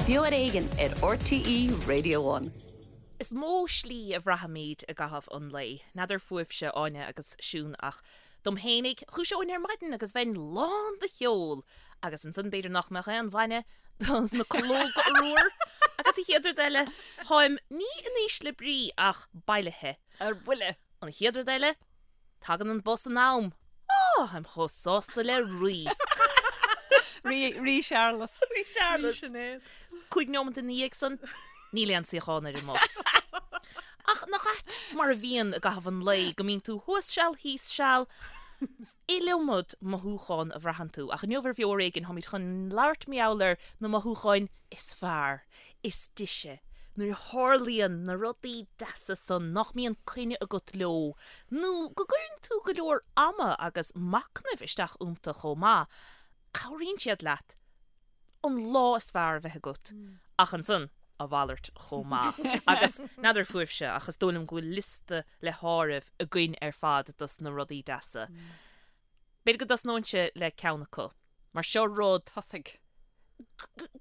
Beo ar Éigean ar RTÉ Radio One. Is mó slí a bhraithimid i gcaitheamh an lae. N'fheadar fúibhse, Áine agus Siún, ach dom fhéinig, dhúiseoinn ar maidin agus bheinn lán de cheol! Agus ansan b'fhéidir nach mbeadh aon bhainne do na calóga corruair! Agus an chéad rud eile, táim ní in ísle brí ach bailithe. Ar buile! An chéad rud eile, Tagann an bus in am. Á, táim chomh sásta le rí. Rí, Rí Searlas. Rí Searlas. Rí Sinéad. 5 neomant ina dhiaidh san, níl aon suíochán ar an mbus. Ach nach ait mar a bhíonn i gcaitheamh an lae, go mbíonn tú thuas seal, thíos seal, iliomad mothúchán a bhraitheann tú. Ach inniu ar Bheo Ar Éigean, táimid chun labhairt mar gheall ar na mothúcháin is fearr, is deise, nuair a tharlaíonn na rudaí deasa san nach mbíonn coinne agat leo, nó go gcuireann tú go leor ama agus machnaimh isteach iontu chomh maith, cabhraíonn siad leat an lá is fearr a bheith agat, ach ansan, a mhalairt chomh maith. Agus n'fheadar fúibhse, ach is dóigh liom go bhfuil liosta le háireamh againn ar fad dos na rudaí deasa. B'fhéidir go dtosnóinnse le ceann acu, mar seo rud. Tosaigh.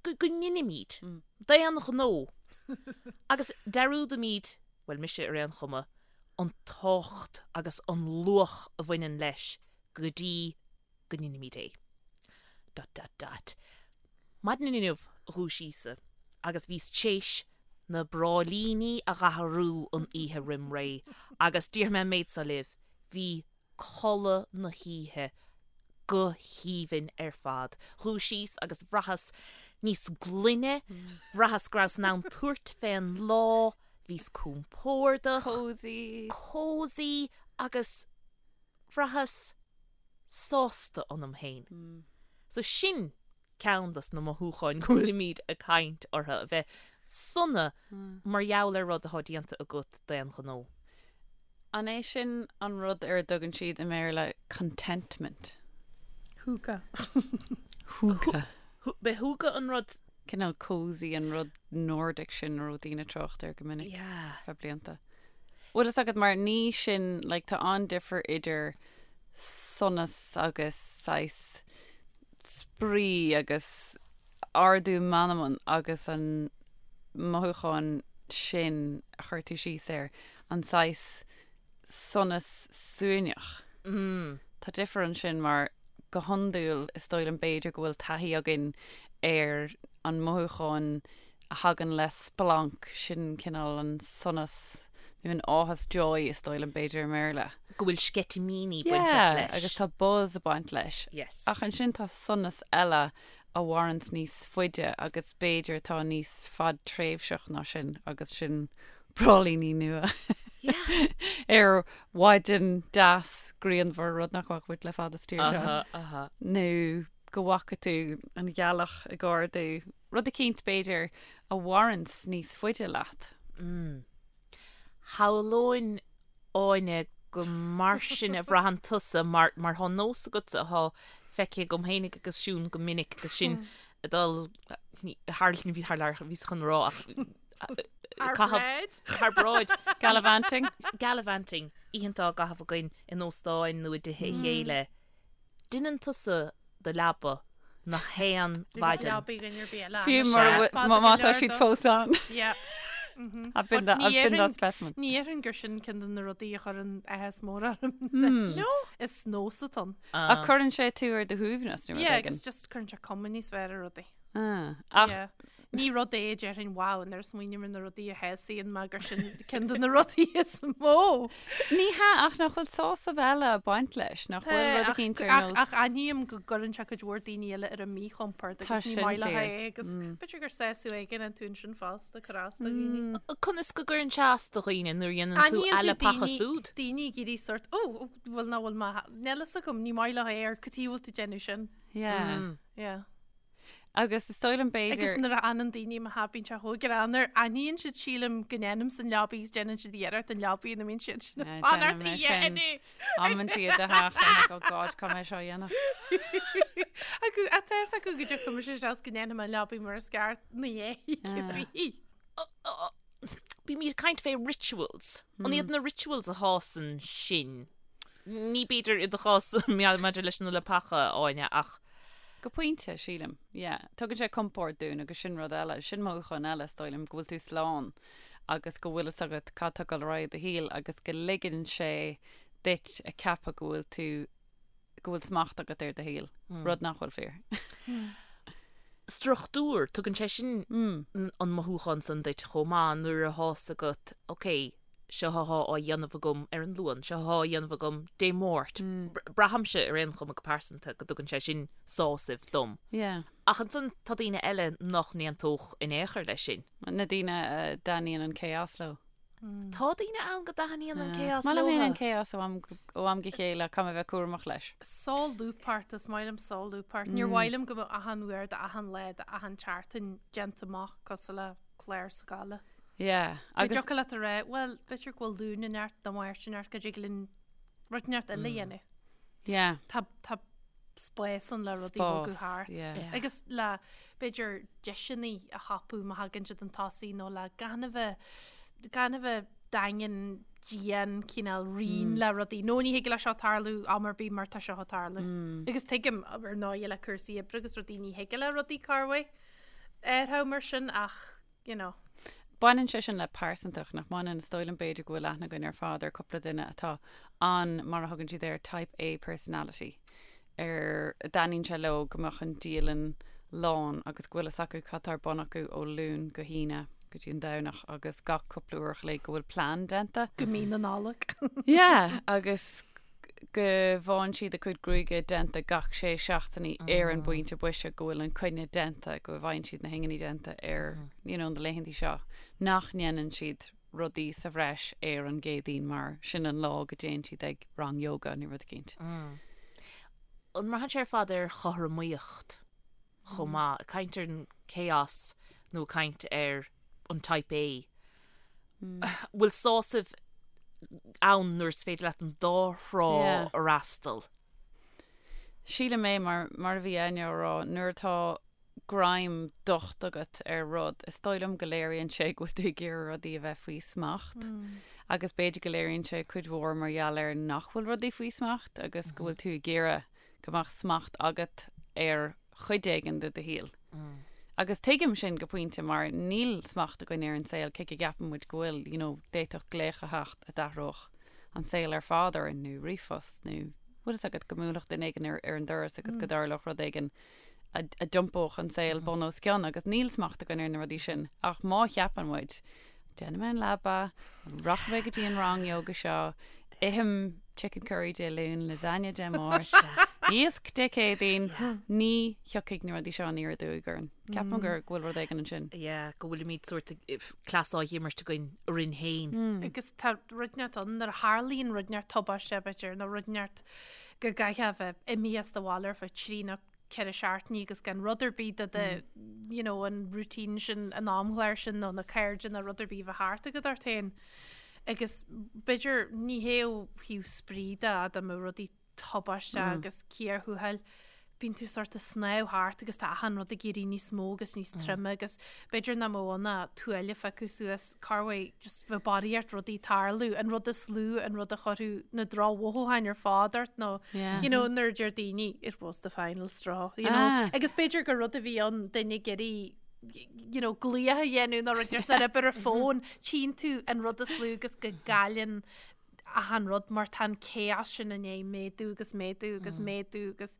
go ndeinimid d'aon ghnó agus dearúdaimid, bhuel mise ar aon chuma, an tábhacht agus an luach a bhaineann leis go dtí go ndeinimid é. Dot dot dot. Maidin inniu dhúisíos-sa agus bhíos t'éis na bráillíní a dh'athrú an oíche roim ré agus déarfaidh mé an méid seo libh, bhí codladh na hoíche go haoibhinn ar fad. Dhúisíos agus bhraitheas níos glaine, bhraitheas go rabhas in ann tabhairt fén lá, bhíos compordach, Cosy. cosy agus bhraitheas sásta ionam féin. So sin ceann dos na mothúcháin go bhfuilimid ag caint orthu, a bheith sona mar gheall ar rud atá déanta agat d'aon ghnó. An é sin an rud ar a dtugann siad i mBéarla contentment? Hygge. Hygge. B'é hygge an rud. Cineál cosy an rud Nordic sin a raibh daoine ag trácht air go minic Yeah. feadh blianta. Bhfuil fhios agat mar ní sin, like, tá an-difear idir sonas agus saghas spraoi agus ardú meanman agus an mothúchán sin a chuir tú síos air, an saghas sonas suaimhneach. Tá difear ansin mar go hiondúil is dóigh liom b'fhéidir go bhfuil taithí againn ar an mothúchán a thagann le splanc, sin cineál an sonas nó an áthas, joy is dóigh liom b'fhéidir i mBéarla. Go bhfuil sceitimíní bainteach Yeah, leis. agus tá buzz ag baint leis. Yes. Ach ansin tá sonas eile a mhaireanns níos faide agus b'fhéidir atá níos fadtréimhseach ná sin agus sin bráillíní nua Yeah. ar mhaidin deas grianmhar, rud nach bhfaca muid le fada sa tír seo. Aha, aha. Nó go bhfaca tú an ghealach ag ardú. Rud eicínt, b'fhéidir, a mhaireanns níos faide leat. Shamhlóinn, Áine, go mar sin a bhraitheann tusa, mar, mar tá nós agatsa atá feicthe agam fhéinig agus Siún go minic agus sinn ag dul, ní, thar, ní bhí thar lear, bhíos chun rá ach, Thar caitheamh, bráid. thar bráid. Gallivanting. Gallivanting, oícheanta á gcaitheamh againn in óstáin nó i dtithe a chéile. Deineann tusa do leaba na haon mhaidin. Leabaí dhuine ar bith eile. Fiú mura Sea. bhfuil- má má tá siad fós ann. Yeah. I've been that, I've been that specimen. Ní dhéarfainn gur sin ceann de na rudaí a chuireann áthas mór orm. No. Is nós atá ann. Ach cuireann sé tú ar do shuaimhneas nó rud Yeah, éigin. agus just cuireann sé cuma níos fearr ar rudaí. Ah, ach Yeah. Ní rud é a déarfainn wow nuair a smaoiním ar na rudaí a shásaíonn mé gur sin ceann de na rudaí is mó. Ní hea, ach nach bhfuil sásamh eile ag baint leis, nach bhfuil rud eicínt ar nós. Ach aithním go gcuireann sé cuid mhór daoine eile ar a míchompord Tá agus ní sin maith leo fíor. é agus b'fhéidir gur sásamh éigin iontu ansin fosta cur as do dhaoine. Conas go gcuireann sé as do dhaoine nuair a dhéanann tú Aithníonn tú leapacha daoine súd? daoine ag iarraidh sort ó bhfuil ná bhfuil mé níl fhios agam ní maith leo é ar cad chuige a bhfuil tú ag déanamh sin. Yeah. Yeah. Agus is dóigh liom b'fhéidir. Agus nuair a fhanann daoine i mo theach bíonn sé chomh greannmhar. Aithníonn siad sílim go ndéanaimse an leabaidh agus déanann siad iarracht an leabaidh ina mbíonn siad sin ag fanacht a dhéanamh. Amantaí i do theach I'm like oh God caithfidh mé seo a dhéanamh. Agus tá fhios acu go dtiocfaidh mise isteach is go ndéanfaidh mé an leabaidh mar is ceart ina dhiaidh cibé. Bímid ag caint fé rituals. An iad na rituals a shásann sinn? Ní b'fhéidir i do chás maidir leis na leapacha, Áine, ach. Go pointe, sílim. Yeah. Tugann sé compord dúinn agus sin rud eile, sin mothúchán eile, is dóigh liom, go bhfuil tú slán agus go bhfuil fhios agat cad tá ag dul ar aghaidh i do shaol agus go ligeann sé duit a ceapadh go bhfuil tú, go bhfuil smacht agat ar do shaol, rud nach bhfuil fíor. Struchtúr, tugann sé sin an mothúchán san duit chomh maith nuair atá fhios agat, ok, seo athá á dhéanamh agam ar an Luan, seo athá á dhéanamh agam Dé Máirt. Braithimse ar aon chuma go pearsanta go dtugann sé sin sásamh dom. Yeah. Ach ansan tá daoine eile nach n-aontódh in aon chor leis sin. Na daoine a dtaitníonn an chaos leo. Tá daoine ann go dtaitníonn an chaos Is maith liom leo. féin an chaos ó am ó am go chéile, caithfidh mé a bheith cúramach leis. Solúbthacht, is maith liom solúbthacht. Níor mhaith liom go mbeadh achan uair d'achan lá d'achan tseachtain déanta amach cosúil le clár scoile. Yeah, agus. Go dtiocfadh leat a rá, bhuel, b'fhéidir go bhfuil Luan inteacht nó Máirt inteacht go dtig linn rud inteacht eile a dhéanamh. Yeah. Tá, tá spás ann le rudaí a bhogadh Spás, thart. yeah. Yeah. Agus le, b'fhéidir, deiseanna a thapú má thagann siad chun tosaigh nó le gan a bheith, gan a bheith daingean, dian, cineál righin le rudaí. Nó ní thig le seo tarlú am ar bith mar tá seo ag tarlú. Agus tuigim, ar ndóigh, le cúrsaí oibre agus rudaí ní thig le rudaí corruair athrú mar sin ach you know. Baineann sé sin le pearsantacht, nach mbaineann? Is dóigh liom b'fhéidir go bhfuil aithne againn ar fad ar cúpla duine atá an, mar a thugann siad air, type A personality, ar a dtaitníonn sé leo go mbeadh an dialann lán agus go bhfuil fhios acu cad tá ar bun acu ó Luan go hAoine go dtí an Domhnach agus gach cúpla uair a chloig go bhfuil plean déanta. Go mí na Nollag. Yeah, agus go bhfaigheann siad a cuid gruaige déanta gach sé seachtainí ar an bpointe boise go bhfuil an coinne déanta, go bhfaigheann siad na hinginí déanta ar you know, na laethantaí seo, nach ndéanann siad rudaí sa bhreis ar an gCéadaoin mar sin an lá go dtéann siad ag rang yoga nó rud eicínt. An mbraitheann sé ar fad ar chothromaíocht chomh maith? Ag caint ar an chaos nó ag caint ar an type A? Bhfuil sásamh ann nuair is féidir leat an dá thrá a fhreastal? Sílim é, mar, mar a bhí Áine á rá, nuair atá greim docht agat ar rud, is dóigh liom go léiríonn sé go bhfuil tú ag iarraidh rudaí a bheith faoi smacht. Agus b'fhéidir go léiríonn sé cuid mhór mar gheall ar nach bhfuil rudaí faoi smacht agus go bhfuil tú ag iarraidh go mbeadh smacht agat ar chuid éigin de do shaol. Agus tuigim sin go pointe mar níl smacht againn ar an saol cé go gceapann muid go bhfuil, you know, d'fhéadfadh glaoch a theacht a d'athródh an saol ar fad orainn nó ríomhphost nó bhfuil fhios agat go mbuailfeadh duine éigin ar, ar an doras agus go dtarlódh rud éigin a, a d'iompódh an saol bun os cionn agus níl smacht againn ar na rudaí sin ach má cheapann muid Déanfaidh mé an leaba, rachaidh mé go dtí an rang yoga seo, ithim chicken curry Dé Luain, lasagne Dé Máirt, iasc Dé Céadaoin, ní thiocfaidh na rudaí seo aniar aduaidh orainn. Ceapaim gur go bhfuil rud éigin ansin. Yeah, go bhfuilimid sórt cleas á dh'imirt againn orainn féin. Agus tá rud inteacht ann nuair a tharlaíonn rud inteacht tubaiste, b'fhéidir, nó rud inteacht go gcaithfeá a bheith imithe as do bhaile ar feadh trí nó 4 seachtainí agus gan rud ar bith de de you know an routine sin an amchlár sin nó na cairde nó rud ar bith a bheith thart agat ort féin. Agus b'fhéidir ní hé ó thaobh spraoi de dá mbeadh rudaí tubaisteach agus cíor thuathail, bíonn tú sort of snámh thart agus tá achan rud ag éirí níos mó agus níos troime agus b'fhéidir nach mbeadh ann ach tuáille a phiocadh suas corruair just bheith barraíocht rudaí tarlú, an rud is lú, an rud a chuirfeadh na drochmhothúcháin ar fad ort nó Yeah. you know nuair a deir daoine it was the final straw, you know. Ah. Agus b'fhéidir gur rud a bhí ann duine ag iarraidh you know, glaoch a dhéanamh nó rud ar ar an bhfón, tchíonn tú an rud is lú agus go gcailleann achan rud mar tá an chaos sin i ndiaidh méadú agus méadú agus méadú agus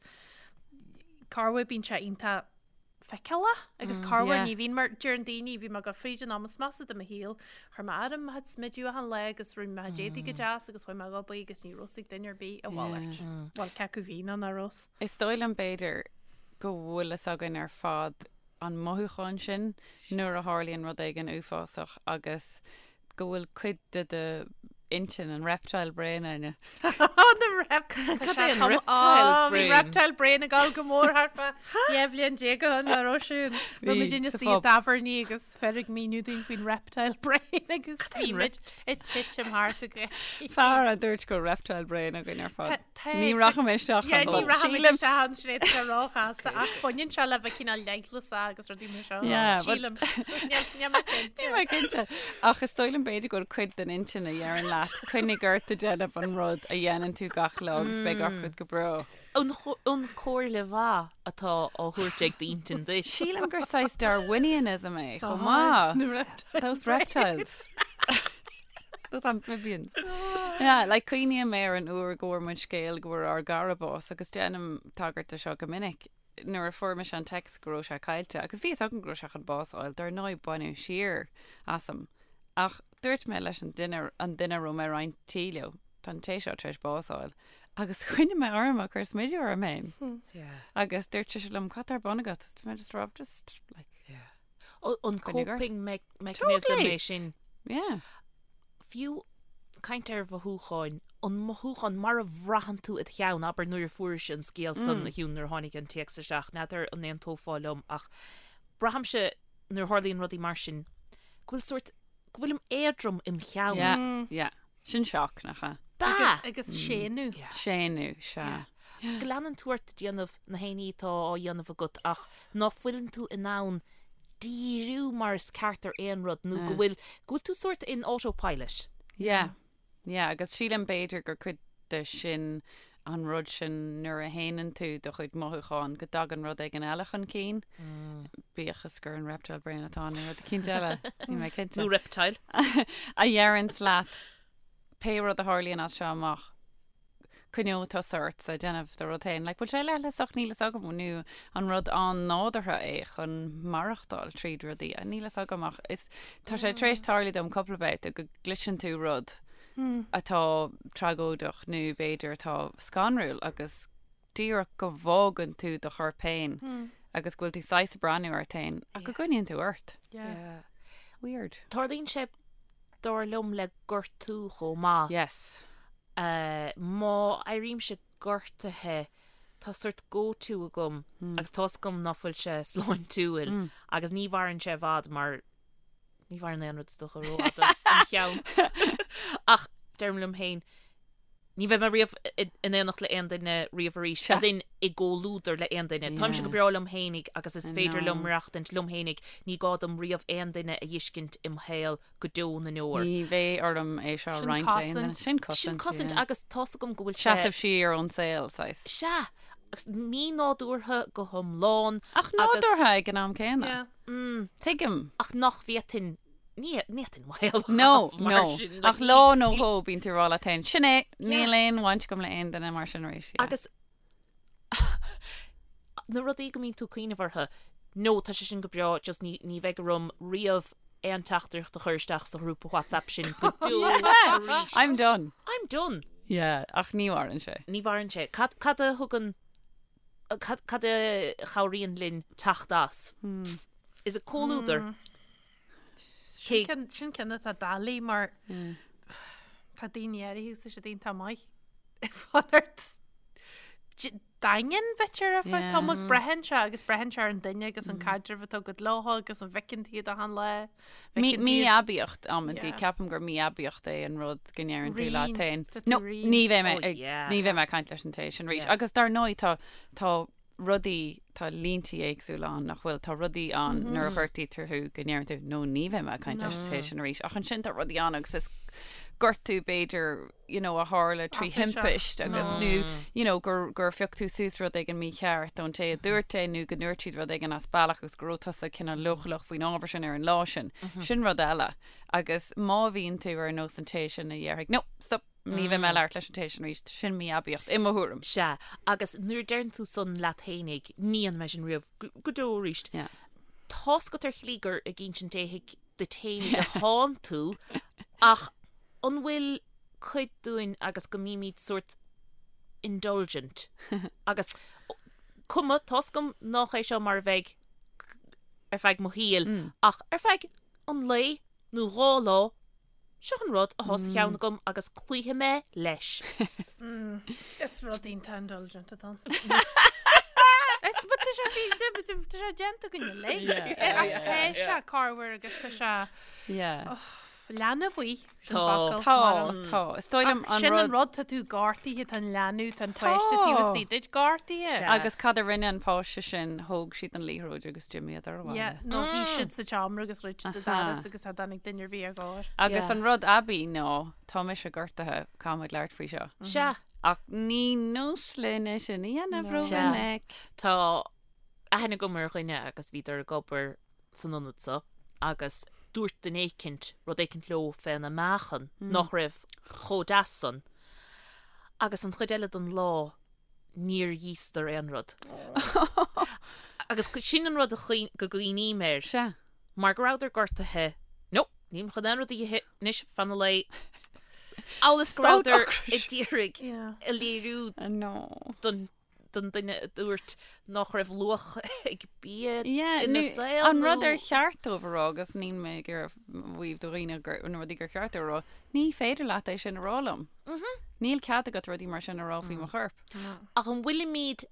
corruair bíonn sé iontach feiceálach agus corruair Yeah. ní bhíonn mar deireann daoine bhí mé ag dul fríd an am is measa de mo shaol chuir mé orm mo chuid smidiú achan lá agus rinne mé mo chuid éadaí go deas agus chuaigh mé ag obair agus ní raibh fhios ag duine ar bith a mhalairt. Bhuel cé acu bhí nó nach raibh. Is dóigh liom b'fhéidir go bhfuil fhios againn ar fad an mothúchán sin nuair a tharlaíonn rud éigin uafásach agus go bhfuil cuid de do intinn, an reptile brain, Áine. Na rep... Cad é an reptile Bhí brain? reptile brain ag dul go mór thart fá 12 bhliain ó shin nach raibh siún. Bhí muid ina sa suí i phub. dtábhairní agus fir ag míniú dúinn faoin reptile brain agus é bhí an muid ag titim thart ag Fear a dúirt go raibh reptile brain againn ar fad. Tá- Ní rachaidh mé isteach Yeah, ann. ní rachaidh muid Sílim- isteach ann sin é tá róchasta ach baineann sé le bheith cineál leithleasach agus rudaí mar seo. Yeah, but- Sílim. Níl níl mé cinnte. Níl mé cinnte. Ach is dóigh liom b'fhéidir go bhfuil cuid den intinn a dheireann leat. leat, coinnigh ort ag déanamh an rud a dhéanann tú gach lá agus beidh gach rud go breá. An chomhairle mhaith atá á thabhairt ag d'intinn duit. Sílim gur saghas Darwinianism é chomh maith. Those reptiles. Those amphibians. Yeah, like cuimhním ar an uair go bhfuair muid scéal go bhfuair ár gcara bás agus déanaim tagairt do seo go minic. Nuair a fuair mise an text go raibh sé caillte, agus bhí fhios agam go raibh sé chun bás a fháil, dar ndóigh baineadh siar asam. Ach dúirt mé leis an duine, an duine a raibh mé ag roinnt tí leo, tá an té seo tar éis bás a fháil. Agus choinnigh mé orm ag cur smideadh orm féin. Agus dúirt sise liom, cad tá ar bun agat? Is mé just raibh just like. An coping mechanism é sin. Yeah. Fiú caint ar mhothúcháin, an mothúchán mar a bhraitheann tú i do cheann, abair nuair a fuairis an scéal san a Shiún nuair a tháinig an téacs isteach, n'fheadar an aontófá liom ach braithimse nuair a tharlaíonn rudaí mar sin go bhfuil sórt, go bhfuilim éadrom im cheann. Yeah, yeah. Sin shock, nach ea? Bea! Agus séanadh. Séanadh, sea. Agus go leanann tú ort ag déanamh na haon ní atá á dhéanamh agat ach ná fuileann tú in ann díriú mar is ceart ar aon rud nó go bhfuil, go bhfuil tú sórt in autopilot. Yeah, yeah, agus sílim b'fhéidir gur cuid de sin an rud sin nuair a shéanann tú do chuid mothúchán go dtagann rud éigin eile chun cinn, bíodh is gur an reptile brain atá ann nó rud eicínt eile, níl mé cinnte. Nó reptile. A dheireanns leat pé rud a tharlaíonn as seo amach, coinneoidh tusa ort ag déanamh do rud féin. Like, bhfuil sé leithleasach? Níl fhios agam. Nó an rud an-nádúrtha é chun maireachtáil tríd rudaí? Níl fhios agam ach is, tá sé tar éis tarlú dom cúpla babhta go gcloiseann tú rud atá tragóideach nó b'fhéidir atá scanrúil agus díreach go bhfágann tú do chorp féin agus go bhfuil tú saghas ag breathnú ort féin ach go gcoinníonn tú ort. Yeah. Weird. Tarlaíonn sé dar liom le gortú chomh maith. Yes. Má éirímse gortaithe tá sort go-to agam agus tá's agam ná fuil sé sláintiúil agus ní mhaireann sé i bhfad mar Ní mhaireann aon rud is dócha rófhada im cheann. Ach deirim liom féin, ní bheidh mé riamh in éineacht le aon duine riamh arís, as in i gcomhluadar le aon duine. Táimse go breá liom fhéinig agus is féidir liom maireachtaint liom fhéinig, ní gá dom riamh aon duine a dh'fheiscint im shaol go deo na ndeor. Ní bheidh orm é seo a roinnt le aon duine. Sin cosaint. Sin cosaint agus tá's agam go bhfuil sé. Seasamh siar ón saol, saghas. Sea. Agus mí-nádúrtha go hiomlán. Ach nádúrtha ag an am céanna. Tuigim. Ach nach bhféadfainn, ní fhéadfainn mo shaol a No, chaitheamh mar no. sin. Ach lá nó dhó bíonn tú ag rá leat féin, sin é, níl aon bhaint agam le aon duine mar sin arís. Yeah. Agus na rudaí go mbíonn tú ag cuimhneamh orthu, no, tá sé sin go breá, just ní, ní bheidh orm riamh aon teachtaireacht a chur isteach sa ghrúpa WhatsApp sin go deo arís. I'm done. I'm done. Yeah, ach ní mhaireann sé. Ní mhaireann sé. Cad, cad a thugann Cad a chabhraíonn linn teacht as? Is it comhluadar? Sin ceann atá doiligh mar tá daoine áirithe agus tá siad iontach maith ag fanacht daingean b'fhéidir ar feadh tamaill. Braitheann sé agus braitheann sé ar an duine agus an caidreamh atá agat leo agus an bhfeiceann tú iad achan lá. Mí-aibíocht amantaí, ceapaim gur mí-aibíocht é an rud go ndeireann tú leat féin. No, ní bheidh mé ag, ní bheidh mé ag caint leis an té sin arís. Agus dar ndóigh tá, tá rudaí, tá línte éagsúla ann nach bhfuil, tá rudaí ann nuair a ghortaítear thú go ndeireann tú no ní bheidh mé ag caint leis an té sin arís. Ach ansin tá rudaí ann agus is gortú b'fhéidir you know, a tharla trí thimpist agus nó you know, gur, gur phioc tú suas rud éigin mícheart ón té a dúirt é nó go ndúirt siad rud éigin as bealach agus go raibh tusa cineál leochaileach faoin ábhar sin ar an lá sin. Sin rud eile. Agus má bhíonn tú ar nós an té sin a dhéarfaidh, no, stop, ní bheidh mé ag labhairt leis an té sin arís, sin mí-aibíocht, i mo thuairim. Sea, agus nuair a deireann tú san leat fhéinig, ní dhéanfaidh mé sin riamh go deo arís. Yeah. Tá's agat ar shlí gur ag insint éithigh duit fhéinig atánn tú, ach an bhfuil cuid dúinn agus go mbímid sórt indulgent agus cuma, tá's agam nách é seo mar a bheidh ar feadh mo shaoil, ach ar feadh an lae nó 2 lá, seo an rud athá sa cheann agam agus cloífidh mé leis. Is rud iontach indulgent atá ann. Is but tá sé fi- tá sé déanta againn uilig. Ach tá sé corruair agus tá sé Yeah. Leanbh í, sin Tá. focal. Tá, mar an- tá. Is dóigh liom Ach an sin an rud. rud, tá tú gortaithe, tá an leanbh, tá an páiste taobh istigh duit gortaithe. Sea. Agus cad a rinne an páiste sin? Thóg siad an liathróid agus d'imíodar abhaile. Yeah, nó shuigh siad sa tseomra agus dhruid siad an Aha. doras agus cha dtáinig duine ar bith ar gcóir. Agus Yeah. an rud aibí ná, tá mise gortaithe, caithfimid labhairt faoi seo. Sea. Ach ní nós linn é sin a dhéanamh Sea. rómhinic. Tá aithne agam ar dhuine agus bhíodar ag obair san ionad so agus dúirt duine éicint rud éicint leo féna meáchan nach raibh chomh deas san agus an chuid eile den lá níor íosdar aon rud. Agus sin an rud a go gcuimhním air. Sea. Mar go rabhadar gortaithe, no, nílim chun aon rud a ithe anois fan an lae. Amhail is go rabhadar ag d'iarraidh a léiriú don don duine a dúirt nach raibh luach ag bia ina saol An rud ar cheart dóibh a rá, agus níl mé ag iarraidh maíomh do dhaoine gur na rudaí gur cheart dóibh a rá, ní féidir leat é sin a rá liom. Níl cead agat rudaí mar sin a rá faoi mo chorp. Ach an bhfuilimid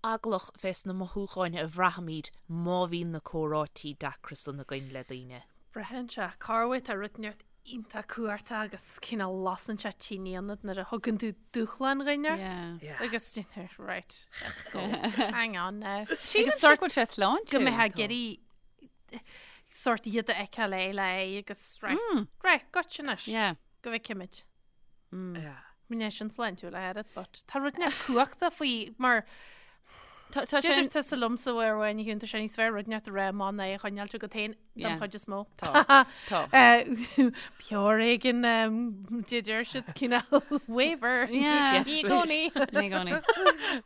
eaglach fés na mothúcháin a bhraithimid má bhíonn na comhráití deacra san againn le daoine? Braitheann sé, corruair tá rud inteacht iontach cumhachtach agus cineál lasann sé tine ionat nuair a thugann tú dúshlán dhuine ort Yeah. agus déantar right let's go hang on now Sílim agus go sort bhfuil sé sláintiúil. go mbeifeá ag iarraidh sort iad a fheiceáil é le aghaidh agus right right gotcha anois Yeah. go bhfeicimid. Yeah. Ní sin sláintiúil a oiread but tá rud inteacht cumhachtach faoi mar Tá tá sé Deir tusa liomsa uair amháin a Shiún tá sé níos fearr rud inteacht a rá amach ná é a choinneáilt agat féin don Yeah. chuid is mó. Tá. Tá. Pure éigin deir siad cineál waiver. Yeah. Ní i gcónaí. Ní i gcónaí.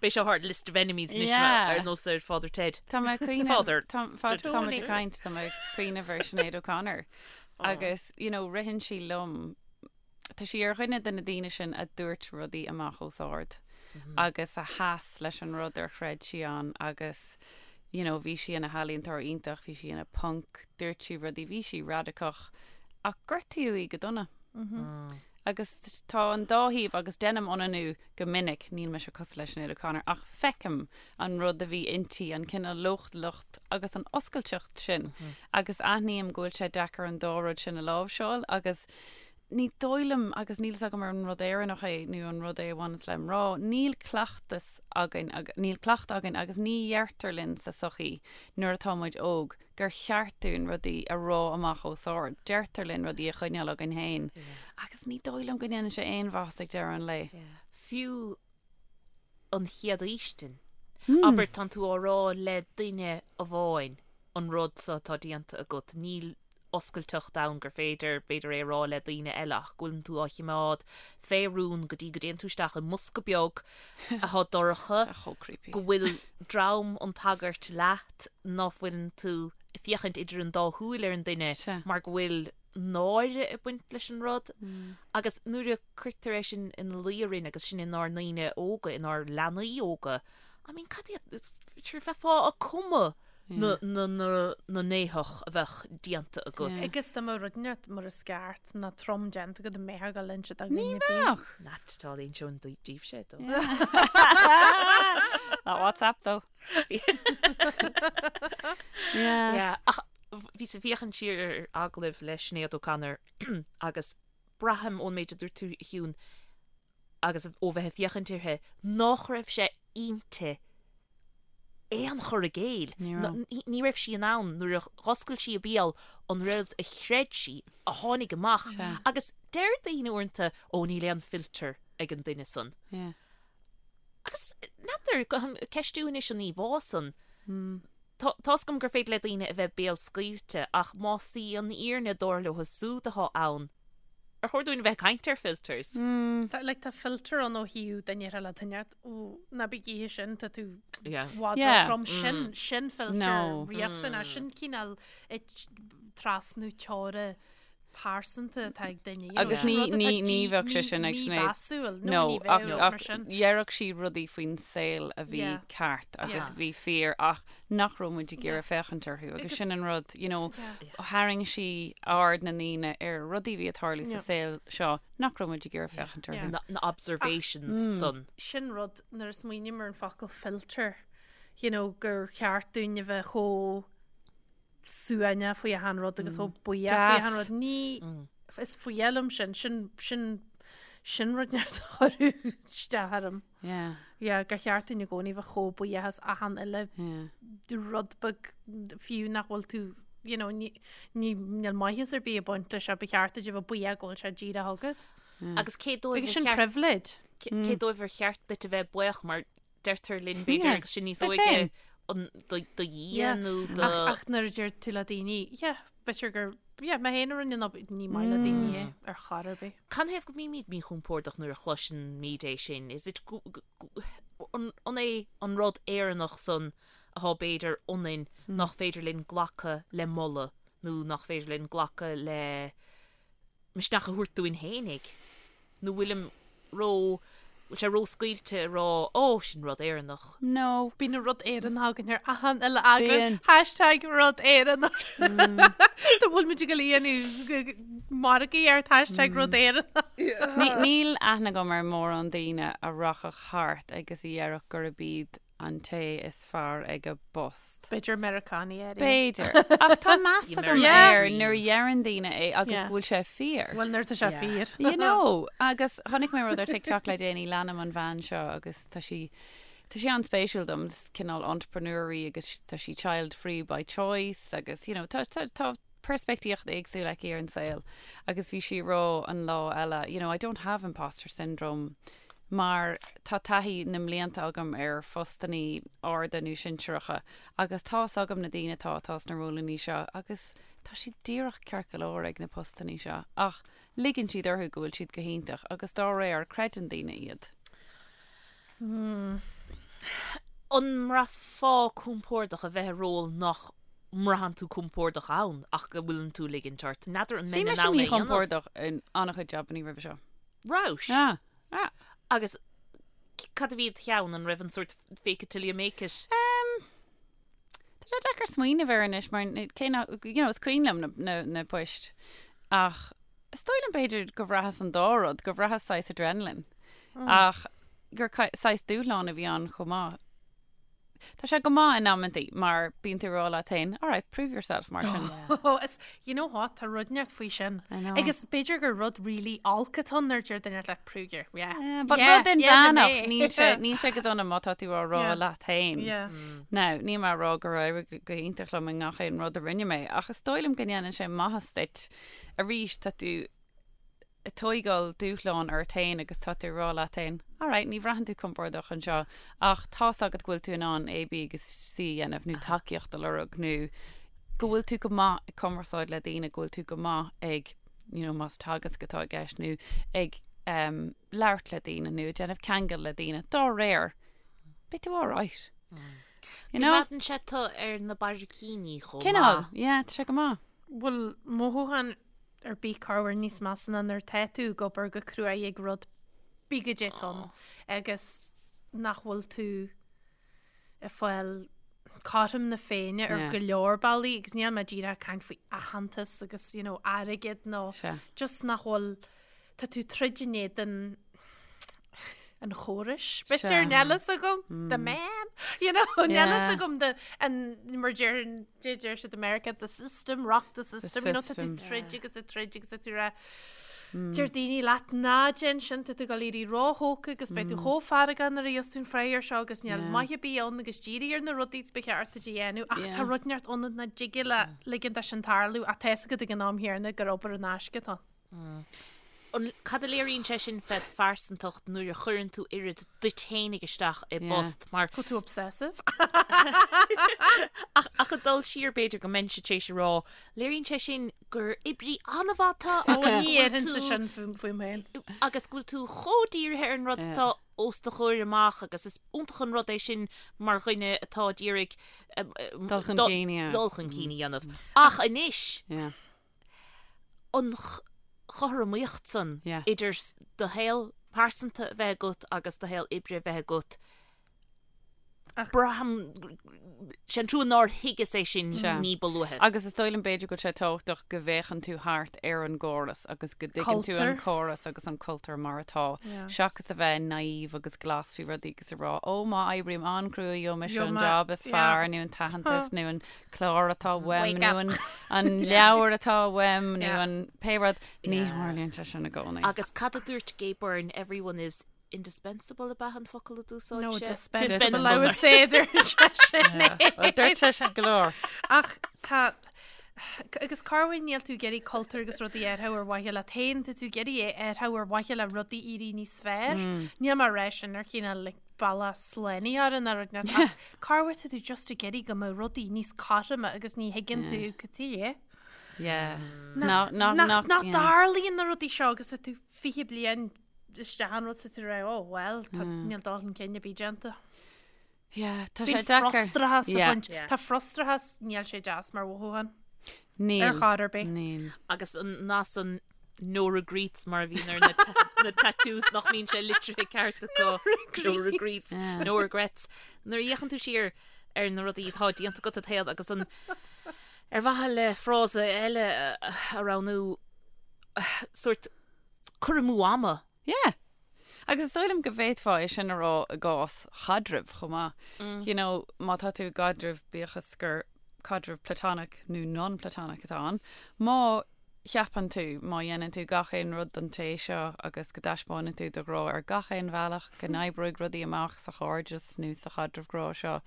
Beidh seo thar list of enemies anois Yeah. ar nós ar Father Ted. Tá mé ag cuimhneamh Father. Tá fad Totally. tá muid ag caint tá mé ag cuimhneamh ar Sinéad O'Connor. Agus you know ritheann sí liom Tá sí ar dhuine de na daoine sin a dúirt rudaí amach os ard agus a sheas leis an rud ar chreid sí ann agus you know bhí sí ina healaíontóir iontach, bhí sí ina punk, dúirt sí rudaí, bhí sí radacach ach gortaíodh í go dona. Agus tá an dá thaobh agus deinim ionannú go minic, níl mise cosúil le Sinéad O'Connor ach feicim an rud a bhí inti, an cineál leochaileacht agus an oscailteacht sin agus aithním go bhfuil sé deacair an dá rud sin a láimhseáil agus Ní dóigh liom, agus níl fhios agam ar an rud Éireannach é nó an rud é a bhaineanns le mná, níl cleachtas againn, níl cleachtadh againn agus ní dheirtear linn sa sochaí nuair atá muid óg gur cheart dúinn rudaí a rá amach os ard. Deirtear linn rudaí a choinneáil againn féin agus ní dóigh liom go ndéanann sé aon mhaitheas ag deireadh an lae. Fiú an chéad fhaoistin. Abair, tánn tú á rá le duine amháin an rud so atá déanta agat, níl oscailteacht ann gur féidir, b'fhéidir, é a rá le daoine eile ach go bhfuileann tú á chimeád fé rún go dtí go dtéann tú isteach i mbosca beag atá dorcha, Chomh creepy. go bhfuil dream an tsagairt leat, ná fuileann tú ag féachaint idir an dá shúil ar an duine Sea. mar go bhfuil náire ag baint leis an rud. Agus nuair a cuirtear é sin ina luí orainn agus sin inár ndaoine óga, inár leanaí óga, I mean, cad iad, sure, bheifeá ag cumadh na n-éitheach a bheadh déanta agat. Agus dá mbeadh rud inteacht mar is ceart ná trom déanta agat an mbeifeá ag dul ag inse do Ní dhuine ar bith. bheadh. Not at all, inseoinn daoibhse é though. Not WhatsApp though. Yeah. Yeah, ach bhíos ag féachaint siar ar agallamh le Sinéad O'Connor agus braithim ón méid a dúirt tú a Shiún, agus ó bheith ag féachaint uirthi, nách raibh sé inti aon chur i gcéill. Ní raibh. Ní raibh sí in ann, nuair a dh'oscail sí a béal, an rud a chreid sí a tháinig amach. Sea. Agus deir daoine uaireanta, ó níl aon filter ag an duine san. Yeah. Agus n'fheadar, ag ceistiú anois an íomhá san. Tá tá's agam gur féidir le daoine a bheith béalscaoilte ach más í an fhírinne dar leo súd atá ann, ar chóir dúinn a bheith ag caint ar filters? Tá, like, tá filter ann ó thaobh duine ar le duine, ó, ná bí ag ithe sin, tá tú Yeah. i bhfad Yeah. róthrom, sin, sin filter No. riachtanach, sin cineál ag trasnú teora pearsanta atá ag duine. you know, Agus sin ní- rud atá ní- ní dí- bheadh sé sin ag Sinéad. mímheasúil, nó No, ní ach, bheadh mar ach sin. dhéarfadh sí rudaí faoin saol a bhí Yeah. ceart agus Yeah. bhí fíor ach nach raibh muid ag iarraidh féachaint orthu agus Agus- sin an rud, you know, Yeah. tharraing sí aird na ndaoine ar rudaí a bhí ag tarlú sa Yeah. saol seo nach raibh muid ag iarraidh féachaint orthu. Yeah. Na, na observations san. Sin rud nuair a smaoiním ar an focal filter, you know, gur cheart dúinn a bheith chomh suaimhneach faoi achan rud agus chomh buíoch faoi achan Deas. rud. Ní. Is fuath liom sin, sin, sin, sin rud a chuireadh isteach orm. Yeah. Yeah, gur cheart dúinn i gcónaí bheith chomh buíoch as achan uile Yeah. rud beag fiú nach bhfuil tú you know, ní, ní, níl maitheas ar bith ag baint leis ba cheart duit a bheith buíoch go bhfuil sé díreach agat. Agus cé dóibh Agus ar sin cheart- privilege. cé dóibh ar cheart duit a bheith buíoch mar deirtear linn b'fhéidir Yeah, agus sinn níos duit óige féin. an do do Dhia Yeah. nó do Ach, ach nuair a deir tú le daoine, yeah, b'fhéidir gur, yeah, mé féin a rinne an obair, ní maith le daoine é ar chor ar bith. Canathaobh go mbímid míchompordach nuair a chloisimid é sin? Is it gu- gu- gu- an an é an rud Éireannach san atá b'fhéidir ionainn nach féidir linn glacadh le moladh nó nach féidir linn glacadh le misneach a thabhairt dúinn fhéinig? Nó bhfuilim ró, bhfuil sé ró-scaoilte a rá, ó, sin rud Éireannach. No. Bíonn an rud Éireannach againn ar achan uile eagrán. Bíonn. Hashtag rud Éireannach. Tá bhfuil muid ag dul a dhéanamh margaí ar hashtag rud Éireannach. Níl aithne agam ar mórán daoine a rachadh thart agus a dhéarfadh gurb iad an té is fearr ag a bpost. B'fhéidir Meiriceánaigh áirithe. B'fhéidir. Ach tá meas The agam American air dream. nuair a dheireann daoine é agus Yeah. go bhfuil sé fíor. Bhuel, nuair tá sé fíor. You know, agus chonaic mé rud ar TikTok le déanaí leanaim an bhean seo agus tá sí tá sí an-spéisiúil dom, is cineál entrepreneur í agus tá sí child free by choice agus you know, tá, tá, tá peirspictíocht éagsúil aici ar an saol agus bhí sí ag rá an lá eile, you know, I don't have imposter syndrome mar tá taithí na mblianta agam ar phostannaí arda nó sinsearacha agus tá's agam na daoine atá atá sna rólannaí seo agus tá siad díreach ceart go leor ag na postannaí seo ach ligeann siad orthu go bhfuil siad go hiontach agus dá réir creideann daoine iad. An mbraithfeá compordach a bheith i ról nach mbraitheann tú compordach ann ach go bhfuileann tú ag ligint ort? N'fheadar an Bhí mbeinn in mise ann é a dhéanamh. míchompordach in an-chuid jabannaí roimhe seo. Rabhais? Ah, ah. Agus cad a bhí id cheann an raibh an sórt fake it till you make it? Um, tá sé deacair smaoineamh air anois mar cé nach, you know, is cuimhin liom na, na, na poist ach is dóigh liom b'fhéidir go bhraitheas an dá rud, go bhraitheas saghas adrenaline ach gur saghas dúshlán a bhí ann chomh maith. Tá sé go maith in amantaí mar bíonn tú ag rá leat féin, all right, prove yourself mar sin. Oh, is, you know what, tá rud inteacht faoi sin. I know. Agus b'fhéidir gur rud really olc atá ann nuair a deir duine leat prove your, yeah. Yeah, but Yeah, rud yeah, inmheánach, mé. níl sé, níl sé go dona má tá tú á rá Yeah. leat féin. Yeah. Now, níl mé ag rá gur éirigh go hiontach liom i ngach aon rud a rinne mé, ach is dóigh liom go ndéanann sé maitheas duit. Arís, tá tú ag tóigeáil dúshlán ort féin agus tá tú ag rá leat féin, alright, ní bhraitheann tú compordach anseo ach tá's agat go bhfuil tú in ann A, B agus C a dhéanamh nó tacaíocht a lorg nó go bhfuil tú go maith ag cumarsáid le daoine, go bhfuil tú go maith ag, you know, más teagasc atá i gceist nó ag um, labhairt le daoine nó ag déanamh ceangal le daoine. Dá réir, beidh tú alright. You know? Coimeádann sé tú ar na barraicíní chomh Cineál, maith. yeah, tá sé go maith. Bhfuil mothúchán ar bith corruair níos measa ná nuair atá tú ag obair go cruaidh ag rud pé goidé atá ann agus nach bhfuil tú ag fáil cothrom na Féinne ar go leor bealaí agus níl mé díreach ag caint faoi aitheantas agus you know, airgead nó just nach bhfuil tá tú troid in éadan an chórais. B'fhéidir níl a fhios agam, the man, you know, níl a fhios agam the, an, mar deir, deir siad America, the system, rock the system, you know, tá tú troid agus ag troid agus tá tú rá, deir daoine leat ná déan sin, tá tú ag dul éirí róthógtha agus beidh tú chomh feargach nuair a gheobhas tú an freagra seo agus níl maith ar bith ann agus dírigh ar na rudaí ba cheart duit a dhéanamh ach tá rud inteacht ionat nach dtig leat ligean dó sin tarlú ach tá a fhios agat ag an am chéanna gur obair in aisce atá ann. An, cad a léiríonn sé sin fed phearsantacht nuair a chuireann tú oiread duit fhéinig isteach i bpost mar. Go tú obsessive. Ach ach ag dul siar b'fhéidir go mbeinnse tar éis a rá, léiríonn sé sin gur oibrí an-mhaith tú agus Ní go bhfuil déarfainnse tú sin faoim féin. agus go bhfuil tú chomh dírithe ar an rud atá os do chomhair amach agus is iontach an rud é sin mar dhuine atá ag iarraidh Dul chun cinn, yeah. dul chun cinn a dhéanamh. Ach anois, Yeah. an chothromaíocht san idir do shaol pearsanta a bheith agat agus do shaol oibre a bheith agat. Braithim, sé an trua nár thuigeas é sin ní ba luaithe. Agus is dóigh liom b'fhéidir go bhfuil sé tábhachtach go bhféachann tú thart ar an gcóras agus go dtuigeann tú an córas agus an cultúr mar atá, seachas a bheith naive agus glas faoi rudaí agus a rá, ó má oibrím an-chrua gheobhaidh mise an job is fearr nó an t-aitheantas nó an clár atá uaim nó an leabhar atá uaim nó an pé rud. Ní tharlaíonn sé sin i gcónaí. Agus cad a dúirt Gay Byrne, everyone is Indispensable ab ea an focal a d'úsáid sé? No, dispensable, I would say, dúirt sé sin. Dúirt sé sin go leor. Ach tá, agus cá bhfuil níl tú ag iarraidh cultúr agus rudaí a athrú ar mhaithe leat féin, tá tú ag iarraidh é a athrú ar mhaithe le rudaí éirí níos fearr. Níl mé ag rá sin ar chineál like, bealach slánaithe ar an rud ach cá bhfuil tá tú just ag iarraidh go mbeadh rudaí níos cothroime agus ní thuigeann tú cad é. Yeah. Nach dtarlaíonn na rudaí seo agus tú 20 bliain isteach an rud sa tú rá, oh well, tá níl dul chun cinn ar bith déanta. Yeah, tá sé Bíonn deacair. frustrachas Yeah. ag baint. Tá frustrachas, níl sé deas mar mhothúchán. Níl. Ar chor ar bith. Níl. Agus an nath san no regrets mar a bhíonn ar na na tattoos nach mbíonn sé litrithe ceart acu. No regrets, Yeah. no regrets. Nuair a fhéachann tú siar ar na rudaí atá déanta agat i do shaol agus an ar mhaithe le frása eile a a roghnú sórt cur amú ama. Yeah. Agus is dóigh liom go bhféadfá é sin a rá i gcás chaidrimh chomh maith. You know, má tá tú i gcaidreamh, bíodh is gur caidreamh platonic nó non-platonic atá ann, má cheapann tú, má dhéanann tú gach aon rud don té seo agus go dtaispeánann tú do ghrá ar gach aon bhealach, go n-oibreoidh rudaí amach sa chairdeas nó sa chaidreamh grá seo,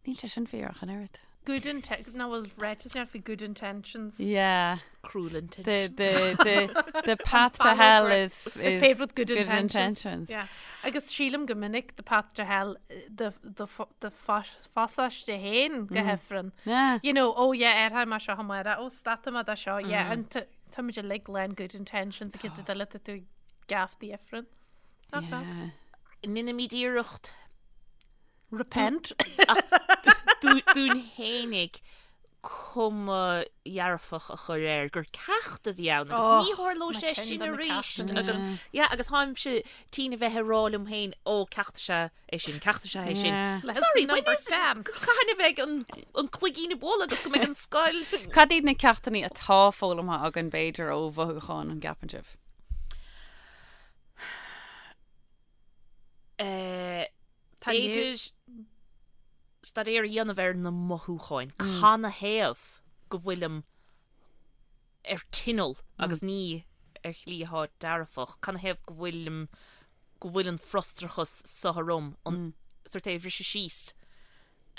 Níl sé sin fíor ach an oiread. Good inten-, nach bhfuil ráiteas ann faoi good intentions. Yeah. Cruel intentions. The, the, the, the path to hell is, is, is paved with good, good intentions. intentions. Yeah. Agus sílim go minic the path to hell do, do, do phasáiste féin go hifreann. Yeah. You know, oh yeah, athróidh mé seo amárach, oh stopfaidh mé de seo, yeah, and tá muid uilig lán good intentions a cinnte duille tá tú gafa d'ifreann. Knock knock. Yeah. Ndéanaimid iarracht Repent. Dúinn fhéinig cuma dhearfach a chur air gur ceacht a bhí ann agus ní tharlóidh sé sin arís agus yeah agus táimse tinn a bheith ag rá liom féin ó ceacht is ea é sin ceacht is ea é sin. Sorry, when is cathain a bheidh an an cloigín ag bualadh agus go mbeidh an scoil Cad iad na ceachtanna atá foghlamtha againn b'fhéidir ó mhothúcháin an gceapann sibh? B'fhéidir staidéar a dhéanamh ar na mothúcháin. Canathaobh go bhfuilim ar tinneall agus ní ar shlí atá dearfach. Canathaobh go bhfuilim, go bhfuil an frustrachas seo orm, an sórt é a bhriseadh síos.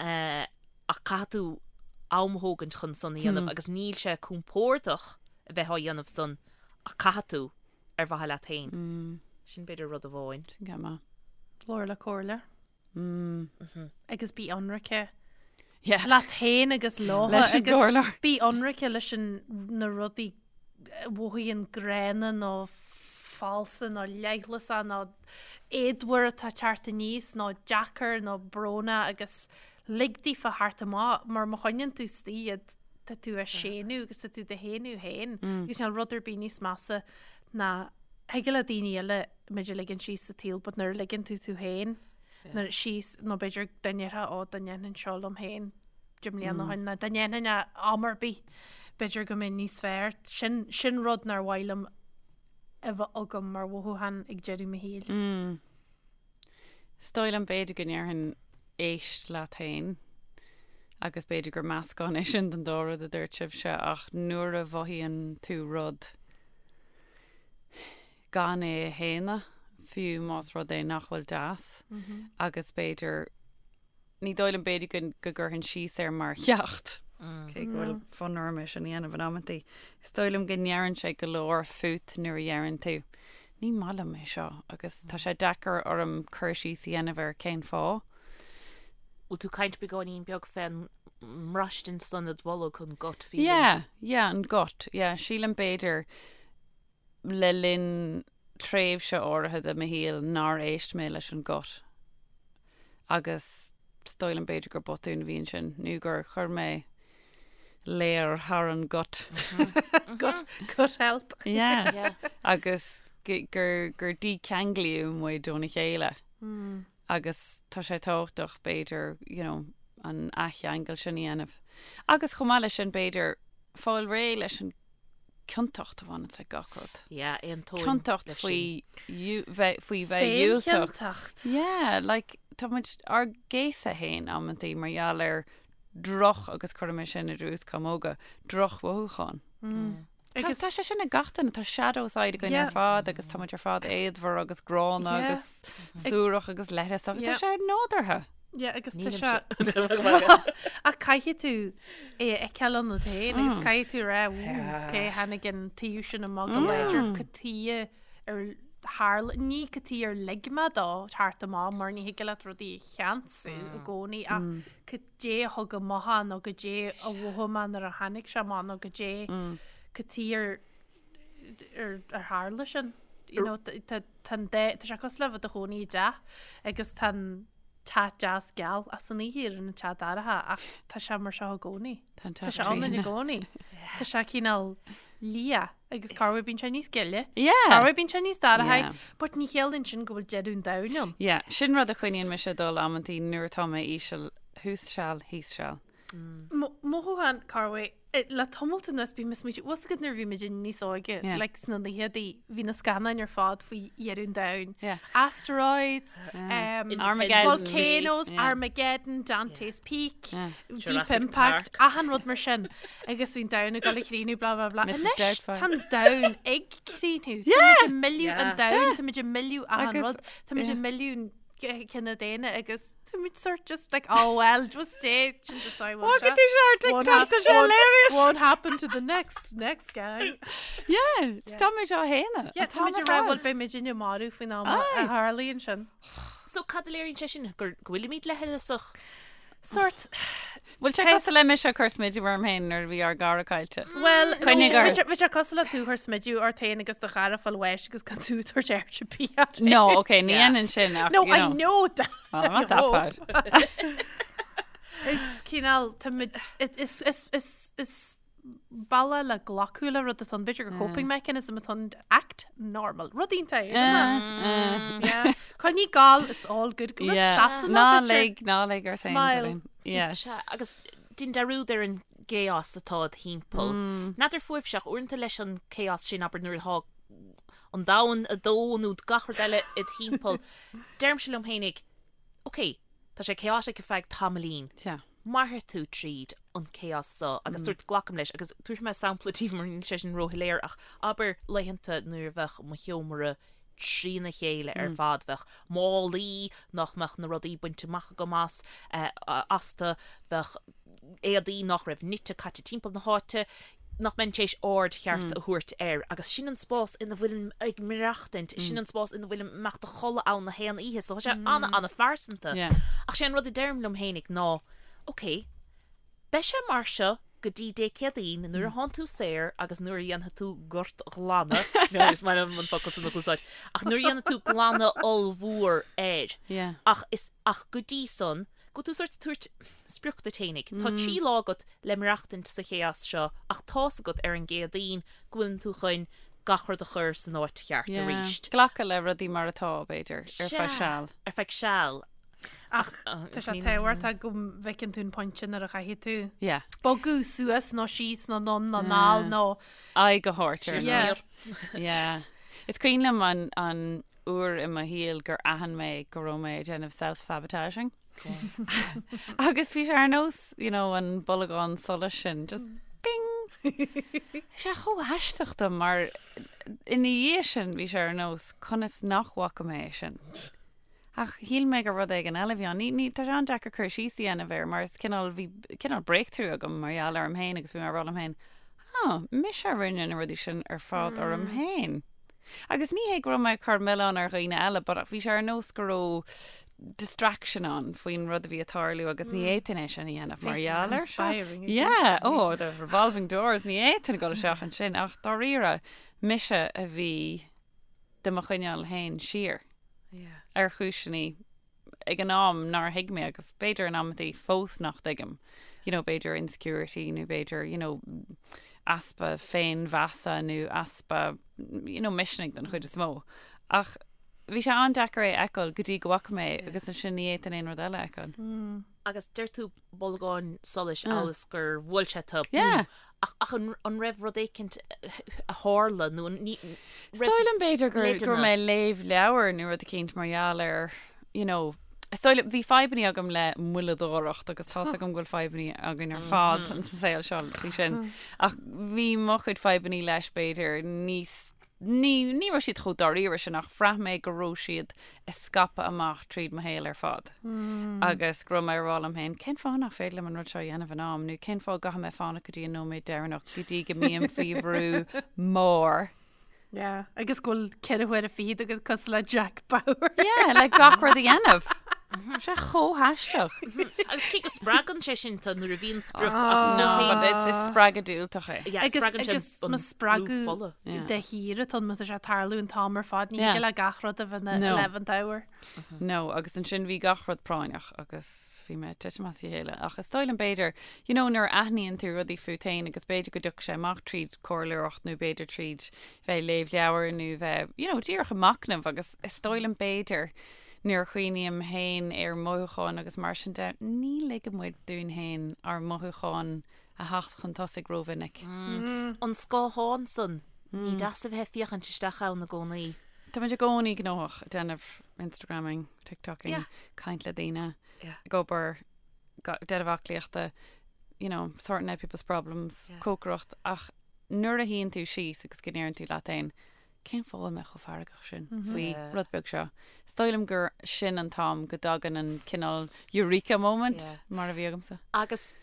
Ach caithfidh tú am a thógaint chun san a dhéanamh agus níl sé compordach a bheith á dhéanamh san ach caithfidh tú. ar mhaithe leat féin. Sin b'fhéidir rud amháin. Sin go maith. Labhair le comhairleoir. Agus bí ionraice Yeah. leat féin agus leo Leis an agus gcomhairleoir. bí ionraice leis an na rudaí a mhothaíonn gránna nó falsa nó leithleasach nó éadmhar atá ag teacht aníos nó deacair nó brónach agus lig daofa theacht amach mar má choinníonn tú istigh iad tá tú á séanadh agus tá tú do shéanadh féin agus níl rud ar bith níos measa ná thig le daoine eile muid a ligean síos sa tsaol but nuair a ligeann tú tú féin nuair síos nó b'fhéidir dá ndéarfá ó dá ndéanfainn seo liom féin 10 mbliana ó shin nó dá ndéanfainn é am ar bith b'fhéidir go mbeinn níos fearr sin sin rud nár mhaith liom a bheith agam mar mhothúchán ag deireadh mo shaoil. Is dóigh liom b'fhéidir go ndéarfainn éist leat féin agus b'fhéidir gur meascán é sin den dá rud a dúirt sibhse ach nuair a mhothaíonn tú rud gan é a shéanadh, fiú más rud é nach bhfuil deas agus b'fhéidir Ní dóigh liom b'fhéidir go go gcuirfinn síos air mar cheacht, cé go bhfuil fonn orm é sin a dhéanamh in amantaí. Is dóigh liom go ndeireann sé go leor fút nuair a dheireann tú, ní maith liom é seo agus tá sé deacair orm cur síos a dhéanamh ar cén fáth. Bhfuil tú ag caint beagáinín beag fén mbraistint san i do bholg, an gut feeling? Yeah, yeah, an gut, yeah. Sílim b'fhéidir le linn tréimhse áirithe de mo shaol nár éist mé leis an gut agus is dóigh liom b'fhéidir gur botún a bhí ansin nó gur chuir mé léar thar an gut. Gut, gut health. Yeah. Agus gur gur dícheanglaíodh muid óna chéile. Agus tá sé tábhachtach, b'fhéidir, you know, an athcheangal sin a dhéanamh. Agus chomh maith leis sin, b'fhéidir, fáil réidh leis an ciontacht a bhaineanns le gach rud. Yeah, aontóinn Ciontacht leis faoi sin. dhiú- bheith faoi bheith dhiúltach. Féinchiontacht. Yeah, like, tá muid ár gcéasadh féin amantaí mar gheall ar droch, agus cuirim é sin idir uaschamóga, drochmhothúcháin. Tá Agus tá sé sin ag gach duine, tá shadow side againn ar Yeah. fad agus tá muid ar fad éadmhar agus gránna Yeah. agus suarach agus leithleasach. Tá Yeah. sé nádúrtha. Yeah, agus tá Nílimse. sé Ach caithfidh tú é a fheiceáil ionat féin agus caithfidh tú rá cé tháinig an taobh sin amach go láidir cad chuige ar tharla ní cad chuige ar lig mé dó teacht amach mar ní thig leat rudaí a cheansú i gcónaí ach cad é a thug amach é nó cad é a mhothaigh mé nuair a tháinig sé amach nó cad é cad chuige ar ar ar tharla sin. You know, tá tá an dá tá sé cosúil le bheith i do chónaí i dteach agus tá an teach deas geal ach san oíche éiríonn an teach dorcha ach tá sé mar seo i gcónaí. Tá an Tá teach sé ann i trína. gcónaí. Tá sé cineál liath agus corruair bíonn sé níos gile. Yeah. Corruair bíonn sé níos dorcha, Yeah. but ní chiallaíonn sin go bhfuil deireadh an domhain ann. Yeah, sin rud a choinníonn mise ag dul amantaí nuair atá mé íseal thuas seal, thíos seal. Mothúchán corruair le tamalt anuas bím ag smaoitiú, bhfuil a fhios agat nuair a bhí muid níos óige, Yeah. like sna naochadaí, bhí na scannáin ar fad faoi dheireadh an domhain. Yeah. Asteroids, um, Armageddon. Volcanoes, Yeah. Armageddon, Dante's Peak, Yeah. Deep Jurassic Impact, Park. achan rud mar sin. Agus bhí an domhan ag dul a chríochnú, blah blah blah. Mrs. Anois, Doubtfire. tá an domhan ag críochnú. Yeah. Tá muid ag milleadh Yeah. an domhan, tá muid ag milleadh achan Agus- rud, tá muid yeah. ag milleadh an cine daonna agus tá muid sort just like oh well just stay sin just I Look at these ar TikTok, tá sé hilarious. Won't happen to the next next guy. Yeah, tá muid á shéanadh. Yeah, tá muid ag rá bhuel beidh muid inne marbh faoin am a Aye. tharlaíonn sin. So cad a léiríonn sé sin gur go bhfuilimid leithleasach? Sort Bhfuil sé cosúil le mise ag cur smideadh orm féin nuair a bhí ár gcara caillte. Well, Coinnigh ort. bhí sé cosúil le tú ag cur smideadh ort féin agus do chara fáil bháis agus gan tú ag tabhairt aird ar bith air. No, okay, ní Yeah. dhéanann sin ach, No, you I know. know that. Well, I'm not that bad. It's cineál tá muid is is is is bealach le glacadh le rud atá ann, b'fhéidir gur coping mechanism atá ann act normal. Rud iontach é, isn't it? Yeah. Coinnigh ag gabháil, it's all good. Go Yeah. seasanna, Ná b'fhéidir. lig, ná lig ort féin, Smile. Corinne. Yeah. Sea, agus déan dearúd ar an gchaos atá id thimpeall. N'fheadar fúibhse ach uaireanta leis an chaos sin, abair nuair atá an domhan ag dó nó gach rud eile id thimpeall, deirimse liom fhéinig, ok, tá sé chaotic ar feadh tamaillín. Sea. Mairfidh tú tríd an chaos so agus sórt glacaim leis agus tabharfaidh mé sampla daoibh mar níl sé sin róshoiléir ach abair laethanta nuair a bheadh mo sheomra trína chéile ar fad, bheadh málaí nach mbeadh na rudaí bainte amach agam as, astu, bheadh éadaí nach raibh nite caite timpeall na háite, nach mbeinn tar éis aird cheart a thabhairt air agus sin an spás ina bhfuilim ag maireachtaint, sin an spás ina bhfuilim imeacht a chodladh ann na haon oíche, so tá sé an-an-phearsanta. Yeah. Ach sé an rud a deirim liom fhéinig ná, ok, beidh sé mar seo go dtí Dé Céadaoin nuair a thánn tú saor agus nuair a dhéanfaidh tú gortghlanadh, no, is maith liom an focal sin a úsáid, ach nuair a dhéanfaidh tú glanadh ollmhór air. Yeah. Ach is, ach go dtí san, go bhfuil tú sórt ag tabhairt sprioc duit fhéinig. Tá 3 lá agat le maireachtaint sa chaos seo ach tá's agat ar an gCéadaoin go bhfuileann tú chun gach rud a chur san áit cheart Yeah. arís. Glacadh le rudaí mar atá, b'fhéidir, ar feadh seal. Ar feadh seal. Ach tá sé tábhachtach go bhfeiceann tú an pointe nuair a chaithfidh tú Yeah. bogadh suas nó síos nó anonn nó anall nó Aghaidh a thabhairt ar Yeah. Yeah. Is cuimhin liom an, an uair i mo shaol gur aithin mé go raibh mé ag déanamh self-sabotaging. Agus bhí sé ar nós, you know, an bolgán solais sin, just ding! Bhí sé chomh haisteach dom mar ina dhiaidh sin bhí sé ar nós conas nach bhfaca mé é sin. Ach shíl mé gur rud éigin eile a bhí ann. Ní, ní, tá sé an-deacair cur síos a dhéanamh air mar is cineál, bhí cineál breakthrough agam mar gheall orm féin agus bhí mé ag rá liom féin, oh, mise a rinne na rudaí sin ar fad orm féin. Agus ní hé go raibh mé ag cur milleán ar dhaoine eile but bhí sé ar nós go raibh distraction ann faoin rud a bhí ag tarlú agus ní fhéadfainn é sin a dhéanamh mar gheall air seo. Yeah, oh, the revolving doors, ní fhéadfainn a dhul isteach ansin ach dáiríre, mise a bhí do mo choinneáil féin siar ar chúiseanna ag an am nár thuig mé agus b'fhéidir in amantaí fós nach dtuigim, you know, b'fhéidir insecurity nó b'fhéidir, you know, easpa féinmheasa nó easpa, you know, misnigh den chuid is mó. Ach. Bhí sé an-deacair é a fheiceáil go dtí go bhfaca mé é agus ansin ní fhéadfainn aon rud eile a fheiceáil. Agus deir tú bolgán solais amhail is gur bhuail sé tú, boom. Ach, ach an, an raibh rud éicint a tharla nó an, ní, Is dóigh liom b'fhéidir gur, go raibh mé ag léamh leabhar nó rud eicínt mar gheall ar, you know, is dóigh liom, bhí fadhbannaí agam le moilleadóireacht agus tá's agam go bhfuil fadhbannaí againn ar fad sa saol seo faoi sin. Ach bhí mo chuid fadhbannaí leis b'fhéidir níos Ní, ní raibh siad chomh dáiríre sin ach bhraith mé go raibh siad ag scaipeadh amach tríd mo shaol ar fad. Agus go raibh mé ag rá liom féin, cén fáth nach féidir liom an rud seo a dhéanamh in am nó cén fáth go gcaithfidh mé fanacht go dtí an nóiméad deireanach go dtí go mbím faoi bhrú mór. Yeah, agus go bhfuil 24 huaire agat cosúil le Jack Bauer. Yeah, le gach rud a dhéanamh. Sé chomh haisteach. Agus cé go spreagann sé sin tú nuair a bhíonn sprioc ach No, but it's, it's spreagadh diúltach é. Yeah, Agus, spreagann sé agus an má spreagadh fola. Yeah. de shíor atá má tá sé ag tarlú an t-am ar fad, ní Yeah. thig le gach rud a bheith ina No. 11th hour. No, agus ansin bhí gach rud práinneach agus bhí mé ag titim as a chéile. Ach is dóigh liom b'fhéidir, you know, nuair a aithníonn tú rudaí fút féin agus b'fhéidir go dtiocfaidh sé amach tríd comhairleoireacht nó b'fhéidir tríd bheith ag léamh leabhar nó bheith, you know, díreach ag machnamh agus is dóigh liom b'fhéidir Nuair a chuimhním féin ar mhothúcháin agus mar sin de, ní ligeann muid dúinn féin ár mothúcháin a theacht chun tosaigh rómhinic. An scáthán san, ní deas a bheith ag féachaint isteach ann i gcónaí. Tá muid i gcónaí gnóthach ag déanamh Instagramming, TikToking, caint le daoine, ag obair, déanamh aclaíochta, you know, sorting out people's problems, cócaireacht, ach nuair a shuíonn tú síos agus go ndeireann tú leat féin, cén fáth a bhfuil mé chomh feargach sin faoi rud beag seo? Is dóigh liom gur sin an t-am go dtagann an cineál eureka moment mar a bhí agamsa. Agus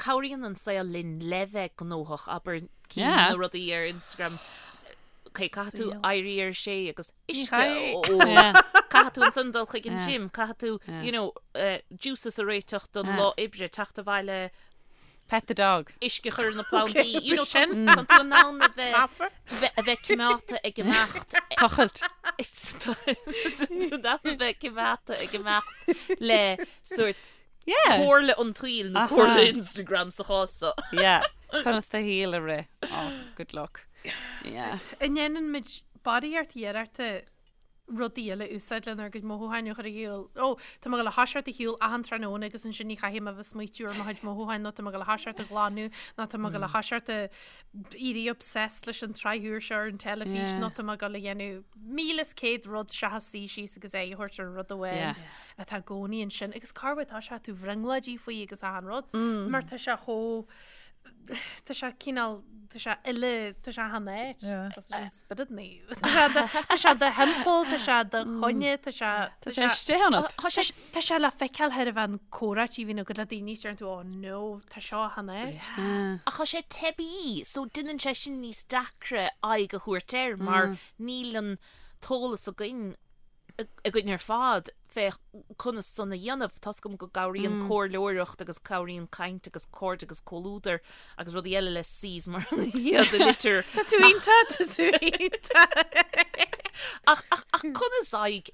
cabhraíonn an saol linn le bheith gnóthach, abair, cinn na rudaí ar Instagram, ok, caithfidh tú éirí ar a sé agus uisce a ól, caithfidh tú ansan dul chuig an gym, caithfidh tú, you know, juices a réiteach don lá oibre, teacht abhaile, Pet the dog. Uisce a chur ar na plandaí. You know, tá tá tú in ann a bheith a bheith coimeádta ag imeacht. Tochailt. Tá tú in ann a bheith coimeádta ag imeacht le sórt comhairle an tsaoil nó comhairle Instagram sa chás seo. Yeah. Conas do shaol a rith. Oh, good luck. Yeah. An ndéanann muid barraíocht iarrachta rudaí eile a úsáid lenár gcuid mothúcháin a chur ar shiúl. Ó, tá mé ag dul a thoiseacht ag shiúl achan tráthnóna agus ansin ní chaithfidh mé a bheith ag smaoitiú ar mo chuid mothúcháin nó tá mé ag dul a thoiseacht ag glanadh nó tá mé ag dul a thoiseacht ag éirí obsessed leis an tsraith úr seo ar an teilifís nó tá mé ag dul a dhéanamh 1,100 rud seachas suí síos agus aghaidh a thabhairt ar an rud amháin atá i gcónaí ansin. Agus cá bhfuil tá sé tú bhrionglóidí faoi agus achan rud mar tá sé chomh Tá sé cineál, tá sé uile, tá sé achan áit. Tá sé an spiorad naomh. Tá sé do, tá sé do thimpeall, tá sé do choinne, tá sé, Tá sé istigh ionat. Tá sé, tá sé le feiceáil thar a bheith an comhráití a bhíonn agat le daoine, deireann tú, oh no, tá seo achan áit. Ach tá sé teibí, so déanann sé sin níos deacra aghaidh a thabhairt air mar níl an t-eolas againn againn ar fad fé conas san a dhéanamh. Tá's agam go gcabhraíonn comhairleoireacht agus cabhraíonn caint agus cairde agus comhluadar agus rudaí eile le C's mar iad a litir. Tá tú iontach, tá tú iontach. Ach, ach, ach conas aghaidh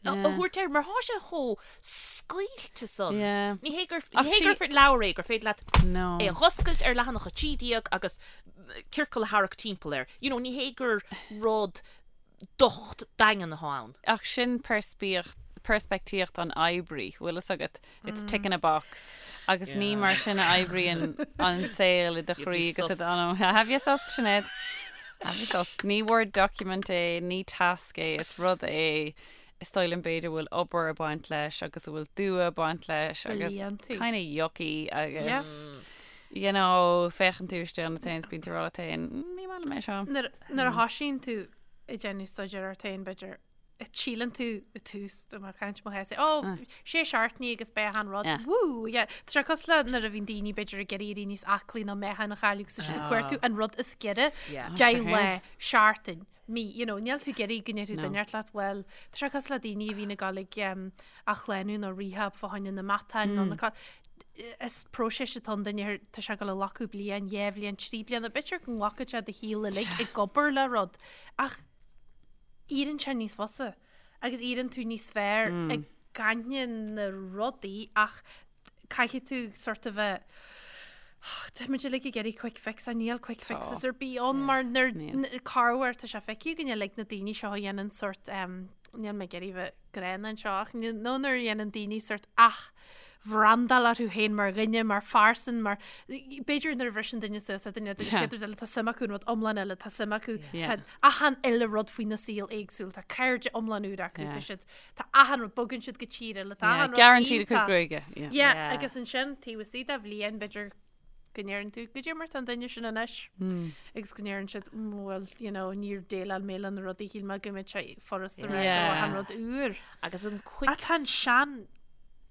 a thabhairt air mar thá sé chomh scaoilte san. Ní hé gur, ní hé gur leabhar é gur féidir leat é a dh'oscailt ar leathanach 13 agus ciorcal a tharrac timpeall air. You know, ní hé gur rud docht daingean atá ann. Ach sin peirspictíocht an oibrí, bhfuil fhios agat, it's ticking a box. Agus ní mar sin a oibríonn an saol i do chroí agus i d'anam. Have you sussed, Sinéad? Have you sussed? Ní Word document é, ní tasc é, is rud é is dóigh liom b'fhéidir a bhfuil obair ag baint leis agus a bhfuil dua ag baint leis agus kind of yucky agus you know, féachann tú isteach ionat féin is bíonn tú ag rá leat féin, ní maith liom é seo. Nuair a thosaíonn tú ag déanamh staidéir ort féin, b'fhéidir, síleann tú i tús do mo chaint mo chás, ó, sé seachtainí agus beidh achan rud, wú, yeah. Tá sé cosúil le nuair a bhíonn daoine b'fhéidir ag iarraidh éirí níos aclaí nó meáchan a chailleadh agus tá siad ag cuartú an rud is giorra, 10 lá, seachtain, mí, you know, níl tú ag iarraidh go ndéarfadh duine leat, bhuel, tá sé cosúil le daoine a bhíonn ag dul ag athshlánú nó rehab fá choinne na matáin nó na Is próiseas atá ann duine, tá sé ag dul a ghlacadh bliain, dhá bhliain, trí bliana, b'fhéidir go nglacfaidh sé do shaol uilig ag obair le rud, ach éiríonn sé níos fusa agus éiríonn tú níos fearr i gcoinne na rudaí ach caithfidh tú sort of a Tá muid uilig ag iarraidh quick fix a níl quick fixes ar bith ann mar nuair corruair tá sé feicthe againn uilig na daoine seo a dhéanann sort um, Níl mé ag iarraidh bheith gránna anseo ach nó nuair a dhéanann daoine sort athbhrandáil orthu féin mar dhuine, mar phearsan, mar b'fhéidir nuair a bhriseann duine suas le duine, den chéad rud eile tá suim acu in rud iomlán eile, tá suim acu, tá achan uile rud faoina saol éagsúil, tá cairde iomlán úr acu, tá siad, tá achan rud, bogann siad go tír eile, tá achan rud Gearrann siad a gcuid gruaige. Yeah, agus ansin taobh istigh de bhliain b'fhéidir go ndeireann tú goidé mar tá an duine sin anois agus go ndeireann siad bhuel you know níor dhéileáil mé le na rudaí shíl mé go mbeadh sé furasta rá yeah. an rud úr agus an quick Tá an sean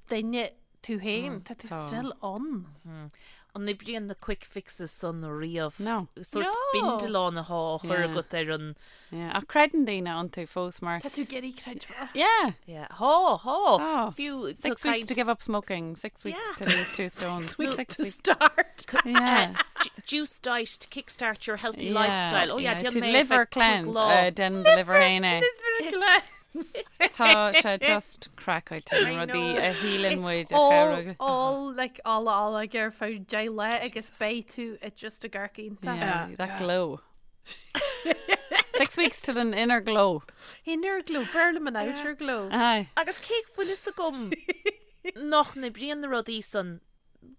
duine tú féin tá tú still ann. Mm. An oibríonn na quick fixes san riamh? No. Sort bindealán atá á chur agat ar an Yeah, ach creideann daoine iontu fós mar. Tá tú ag iarraidh creidbheáil. Yeah. Yeah. Thá, thá. Thá. Fiú Six weeks to give up smoking, six weeks to lose two stones. Six weeks to start. Yeah. Juice diet to kickstart your healthy lifestyle. Oh yeah, To déan mé liver cleanse. Uh, Déan do liver féin é. Liver cleanse. Tá sé just craiceáilte na rudaí a shíleann muid a chabhróidh. All, like, all, all ag ar feadh 10 lá agus beidh tú i just ag amharc iontach. Yeah, that glow. Six weeks to an inner glow. Inner glow, b'fhearr liom an outer glow. Aye. Agus cé go bhfuil fhios agam nach n-oibríonn na rudaí san,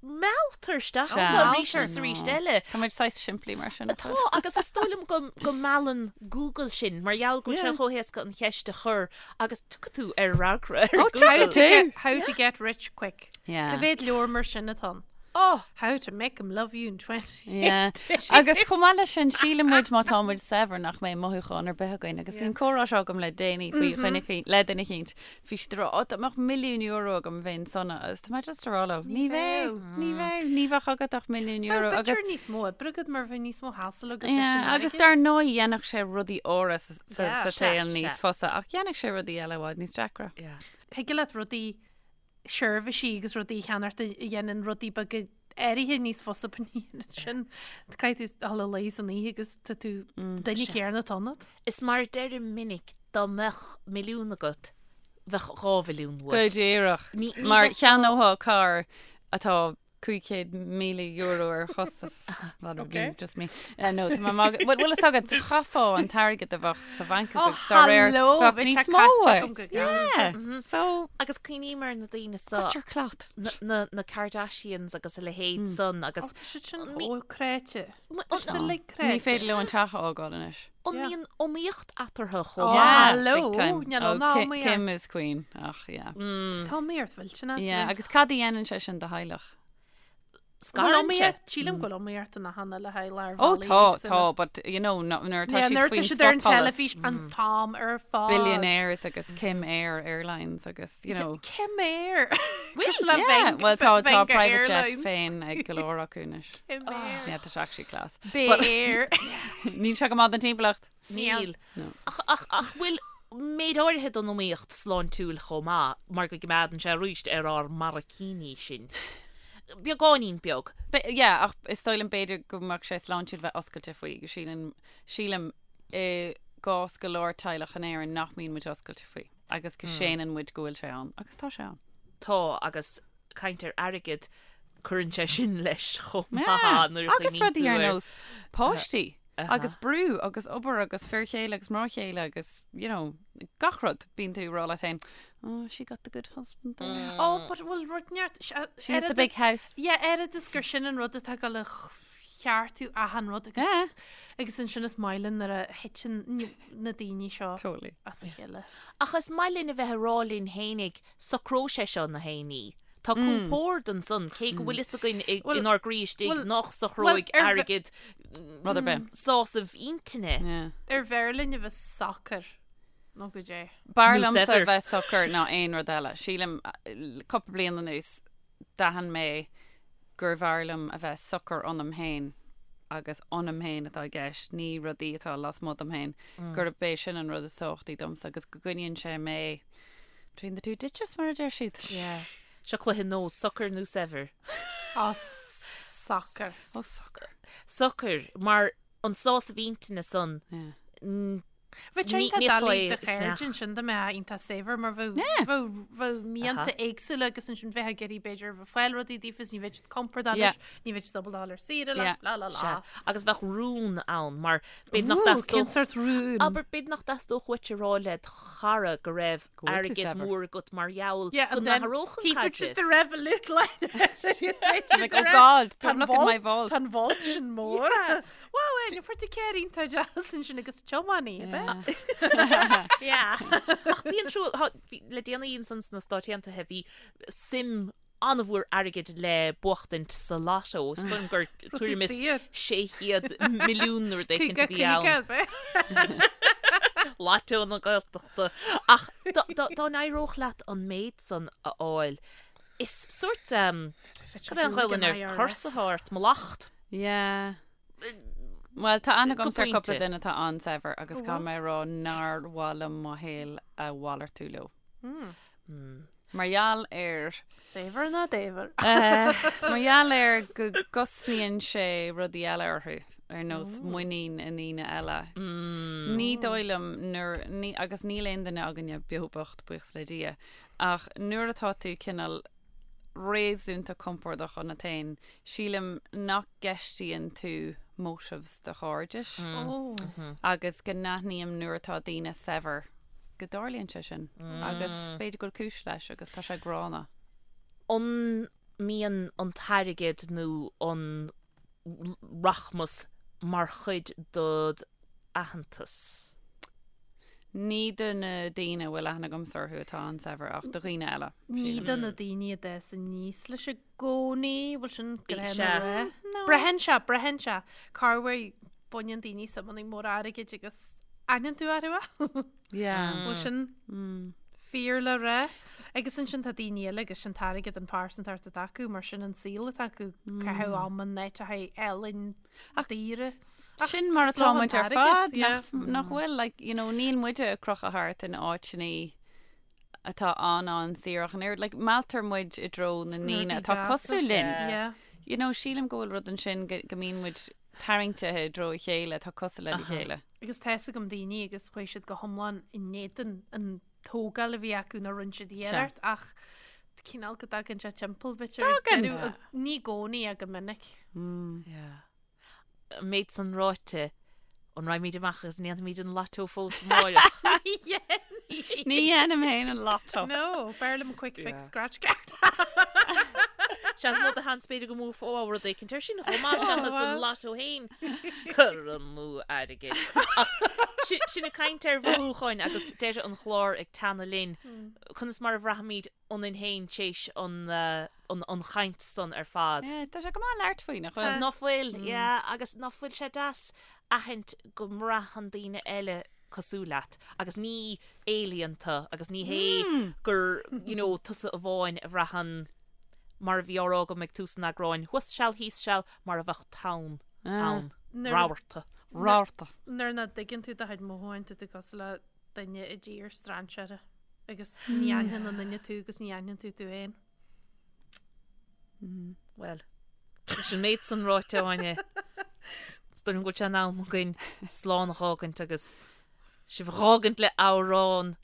mealltar isteach Sea. iontu arís is arís eile. Tá muid saghas simplí mar sin. Tá, agus is dóigh liom go, go meallann Google sinn, mar gheall go bhfuil sé chomh héasca an cheist a chur agus tiocfaidh tú ar fhreagra ar Oh, Google. How tiocfaidh to tú. get, how to get rich quick. Yeah. Cá mhéad leabhar mar sin atá ann? Oh! How to make 'em love you in 20 Yeah. Agus chomh maith leis sin, síleann muid má tá muid saibhir nach mbeidh mothúchán ar bith againn. Agus bhí an comhrá seo agam le déanaí faoi dhuine eicínt, le duine eicínt. Is bhí siad ag rá, "Ó, dá mbeadh milliún euro agam bheinn sona." Agus tá mé just ag rá leo, ní bheadh, ní bheadh, ní bheadh agat ach milliún euro. Bheadh Agus b'fhéidir níos mó oibre agat mar bheadh níos mó hassle agat leis Yeah, an agus airgead. dar ndóigh dhéanfadh sé rudaí áirithe sa, sa, Yeah. sa Sea, tsaol níos sea. fusa, ach dhéanfadh sé rudaí eile i bhfad níos deacra. Yeah. Thig leat rudaí seirbhísí agus rudaí a cheannacht a dhéanann rudaí beaga áirithe níos fusa but ní dhéanann sin. Caithfidh tú dul a luí san oíche agus tá tú duine céanna atá ionat. Is mar a deirim minic, dá mbeadh milliún agat, bheadh 2 mhilliún Go uait. díreach. Ní, ní Mar bheadh cheannófá carr atá €500,000 ar chostas. That would be just me. Uh, no, tá mé mag- Bhuel, bhfuil fhios agat, chaithfeá an t-airgead a bheadh sa bhanc Oh, agat dá réir hello, bheadh bheadh níos sé mó caite uait. agam go gasta. Yeah. So, Agus cuimhním ar na daoine seo, cut your cloth. na, na, na Kardashians agus a leithéid san agus Oh, tá siad sin An mí- chomh cráite. An- Tá siad uilig Ní cráite. féidir leo an teach a fhágáil anois. An Yeah. mbíonn iomaíocht eatarthu chomh Oh, maith? hello, big time. níl Oh, ann ná Ki- iomaíocht. Kim is queen. Ach, yeah. Tá iomaíocht mhillteanach. Yeah, agus cad a dhéanann sé sin do theaghlach? Scarann sé. Sílim go bhfuil iomaíocht ina hana le haghaidh lár Oh, tá, tá, but you know, no- nuair atá Yeah, siad nuair atá faoin siad ar an spotsholas, teilifís an t-am ar fad. billionaires agus Kim Air Airlines agus, you know. Kim Air. Cosúil le Yeah, Veng- well tá tá Venga private jet Airlines. féin ag go leor acu anois. Kim Air. Yeah, tá sé actually class. Bay Air. Níl sé go maith don timpeallacht. Níl. Ach, ach, ach bhfuil méid áirithe den iomaíocht sláintiúil chomh maith mar go gcoimeádann sé arís ar ár mbarraicíní sinn. Beagáinín beag. Be- yeah, ach is dóigh liom b'fhéidir go mbeadh sé sláintiúil bheith oscailte faoi, go sílim, sílim i gcás go leor teaghlach in Éirinn nach mbíonn muid oscailte faoi agus go séanann muid go bhfuil sé ann, agus tá sé ann. Tá, agus caint ar airgead, cuireann sé sin leis chomh maith Yeah, nuair a agus chuimhníonn rudaí tú ar ar nós páistí agus brú agus obair agus fir chéile agus mná chéile agus, you know, gach rud. Bíonn tú ag rá leat féin, oh, she got the good husband though. Oh, but bhfuil rud neart... She has the big house. Yeah, oiread is gur sin an rud atá ag dul a cheartú achan rud agus Yeah. agus ansin is maith linn nuair a thiteann na daoine seo Totally. as a chéile. Ach is maith linn a bheith ag rá linn fhéinig, socróidh sé seo na héinní. Tá compord ansan, cé go bhfuil fhios againn Bhuel, inár gcroí istigh bhuel, nach bhuel, socróidh ar bhe- airgead Rud ar bith. sásamh intinne. Yeah. Ar bhfearr linn a bheith socair nó goidé. B'fhearr Nó liomsa saibhir. bheith socair ná aon rud eile. Sílim, cúpla bliain anuas, d'aithin mé gurbh fhearr liom a bheith socair ionam féin agus ionam féin atá i gceist, ní rudaí atá lasmuigh dom féin, gurb é sin an rud is tábhachtaí domsa agus go gcoinníonn sé mé between the two ditches, mar a deir siad. Yeah. Seo cluiche nós, socair nó saibhir? Á, socair. Ó, socair. Socair, mar an sásamh intinne san, Yeah. Bheadh sé iontach doiligh do chairde ansin dá mbeifeá iontach saibhir mar bheadh bheadh mianta éagsúla agus ansin bheifeá ag iarraidh b'fhéidir bheith ag fáil rudaí daofa is ní bheadh siad compordach leis, ní bheadh siad ábalta dul ar saoire leat, blah blah blah. Agus bheadh rún ann mar b'fhéidir nach dteastódh. Cén sórt rún? Abair b'fhéidir nach dteastódh uait a rá le do chara go raibh airgead mór agat mar gheall go n-athródh an caidreamh. The Revolut line. Like, oh God, don't look in my vault. Tá an vault sin mór. Wow, Áine, fuair tú carr iontach deas ansin agus tiománaí, ab ea? Yeah. Ach bíonn trua, thá, bhí, le déanaí ansan sna Stáit Aontaithe bhí suim an-mhór airgid le buachtaint sa lotto, is dóigh liom gur tuairim is 600 milliún nó rud éicint a bhí ann. Ab ea? Lotto na Gaeltachta. Ach dá, dá, dá n-éireodh leat an méid san a fháil, is sórt, cad é an Ghaelainn ar curse atá ort, mallacht. Yeah. Bhuel, tá aithne agamsa ar cúpla duine atá an-saibhir agus caithfidh mé a rá nár mhaith liom mo shaol a mhalartú leo. Mar gheall ar. Saibhir ná daibhir. Mar gheall ar go gcosnaíonn sé rudaí eile orthu, ar nós muinín i ndaoine eile. Ní dóigh liom nuair, ní, agus níl aon duine againne beo bocht, buíochas le Dia, ach nuair atá tú cineál réasúnta compordach ionat féin, sílim nach gceistíonn tú motives do chairdis agus go n-aithním nuair atá daoine saibhir go dtarlaíonn sé sin agus b'fhéidir go bhfuil cúis leis agus tá sé gránna. An mbíonn an t-airgead nó an rachmas mar chuid dod aitheantas? Ní do na daoine a bhfuil aithne agamsa orthu atá an-saibhir ach do dhaoine eile, Ní sílim. do na daoine a d'fhás aníos leis i gcónaí, bhfuil sin Sea. gránna a rá? Braitheann sé, braitheann sé. Corruair baineann daoine suimeanna móra airgid agus aithneann tú orthu é. Yeah. Bhfuil sin fíor le rá? Agus ansin tá daoine eile agus sin t-airgead an phearsantacht atá acu mar sin an saol atá acu, caitheamh ama in áiteacha álainn daora. Sin mar atá muid ar fad, nach, nach bhfuil, like, you know, níl muide ag crochadh thart in áiteanna atá an-an-saor ach an oiread, like, mealltar muid i dtreo na ndaoine atá cosúil linn. Yeah. You know, sílim go bhfuil rud ansin go, go mbíonn muid tarraingthe i dtreo a chéile atá cosúil lena chéile. Agus tá 'fhios agam daoine agus chuaigh siad go hiomlán in éadan an tógáil a bhí acu nó rinne siad iarracht ach cineál go dtagann sé timpeall b'fhéidir ag Tagann. deireadh, ní i gcónaí ach go minic. Yeah. An méid san ráite, an raghaimid amach agus an ndéanfaimid an lotto fós amárach? Ní dhéanaim féin an lotto. No, b'fhearr liom quick fix scratch card. Sea, is mó de sheans b'fhéidir go mbuafá rud éicint ar sin chomh maith seachas an lotto féin. Cur amú airgid. Ach sin ag caint ar mhothúcháin agus deireadh an chláir ag teannadh linn. Conas mar a bhraithimid ionainn féin téis an an chaint san ar fad. Yeah, tá sé go maith labhairt faoi, nach bhfuil? Ná fuil, yeah, agus ná fuil sé deas aithint go mbraitheann daoine eile cosúil leat agus ní alien tú agus ní hé gur, you know, tusa amháin a bhraitheann mar a bhí á rá agam ag tús an eagráin, thuas seal thíos seal mar a bheadh tonn ann, rabharta. Rabharta. Nuair nach dtuigeann tú do chuid mothúchán, tá tú cosúil le duine i dtír strainséara agus ní aithneann an duine tú agus ní aithneann tú tú féin. Bhuel, leis an méid san ráite, Áine, is dóigh liom go bhfuil sé in am againn slán a dh'fhágaint agus sibh a dh'fhágaint le amhrán,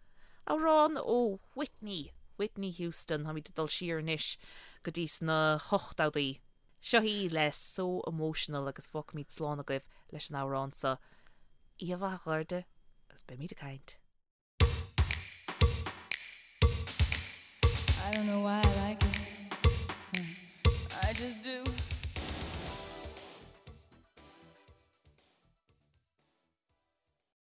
amhrán ó Whitney, Whitney Houston, táimid ag dul siar anois go dtí sna hochtóidí. Seo í le So Emotional agus fágfaimid slán agaibh leis an amhrán seo. Oíche mhaith a chairde agus beimid ag caint. I don't know why I like it. I just do.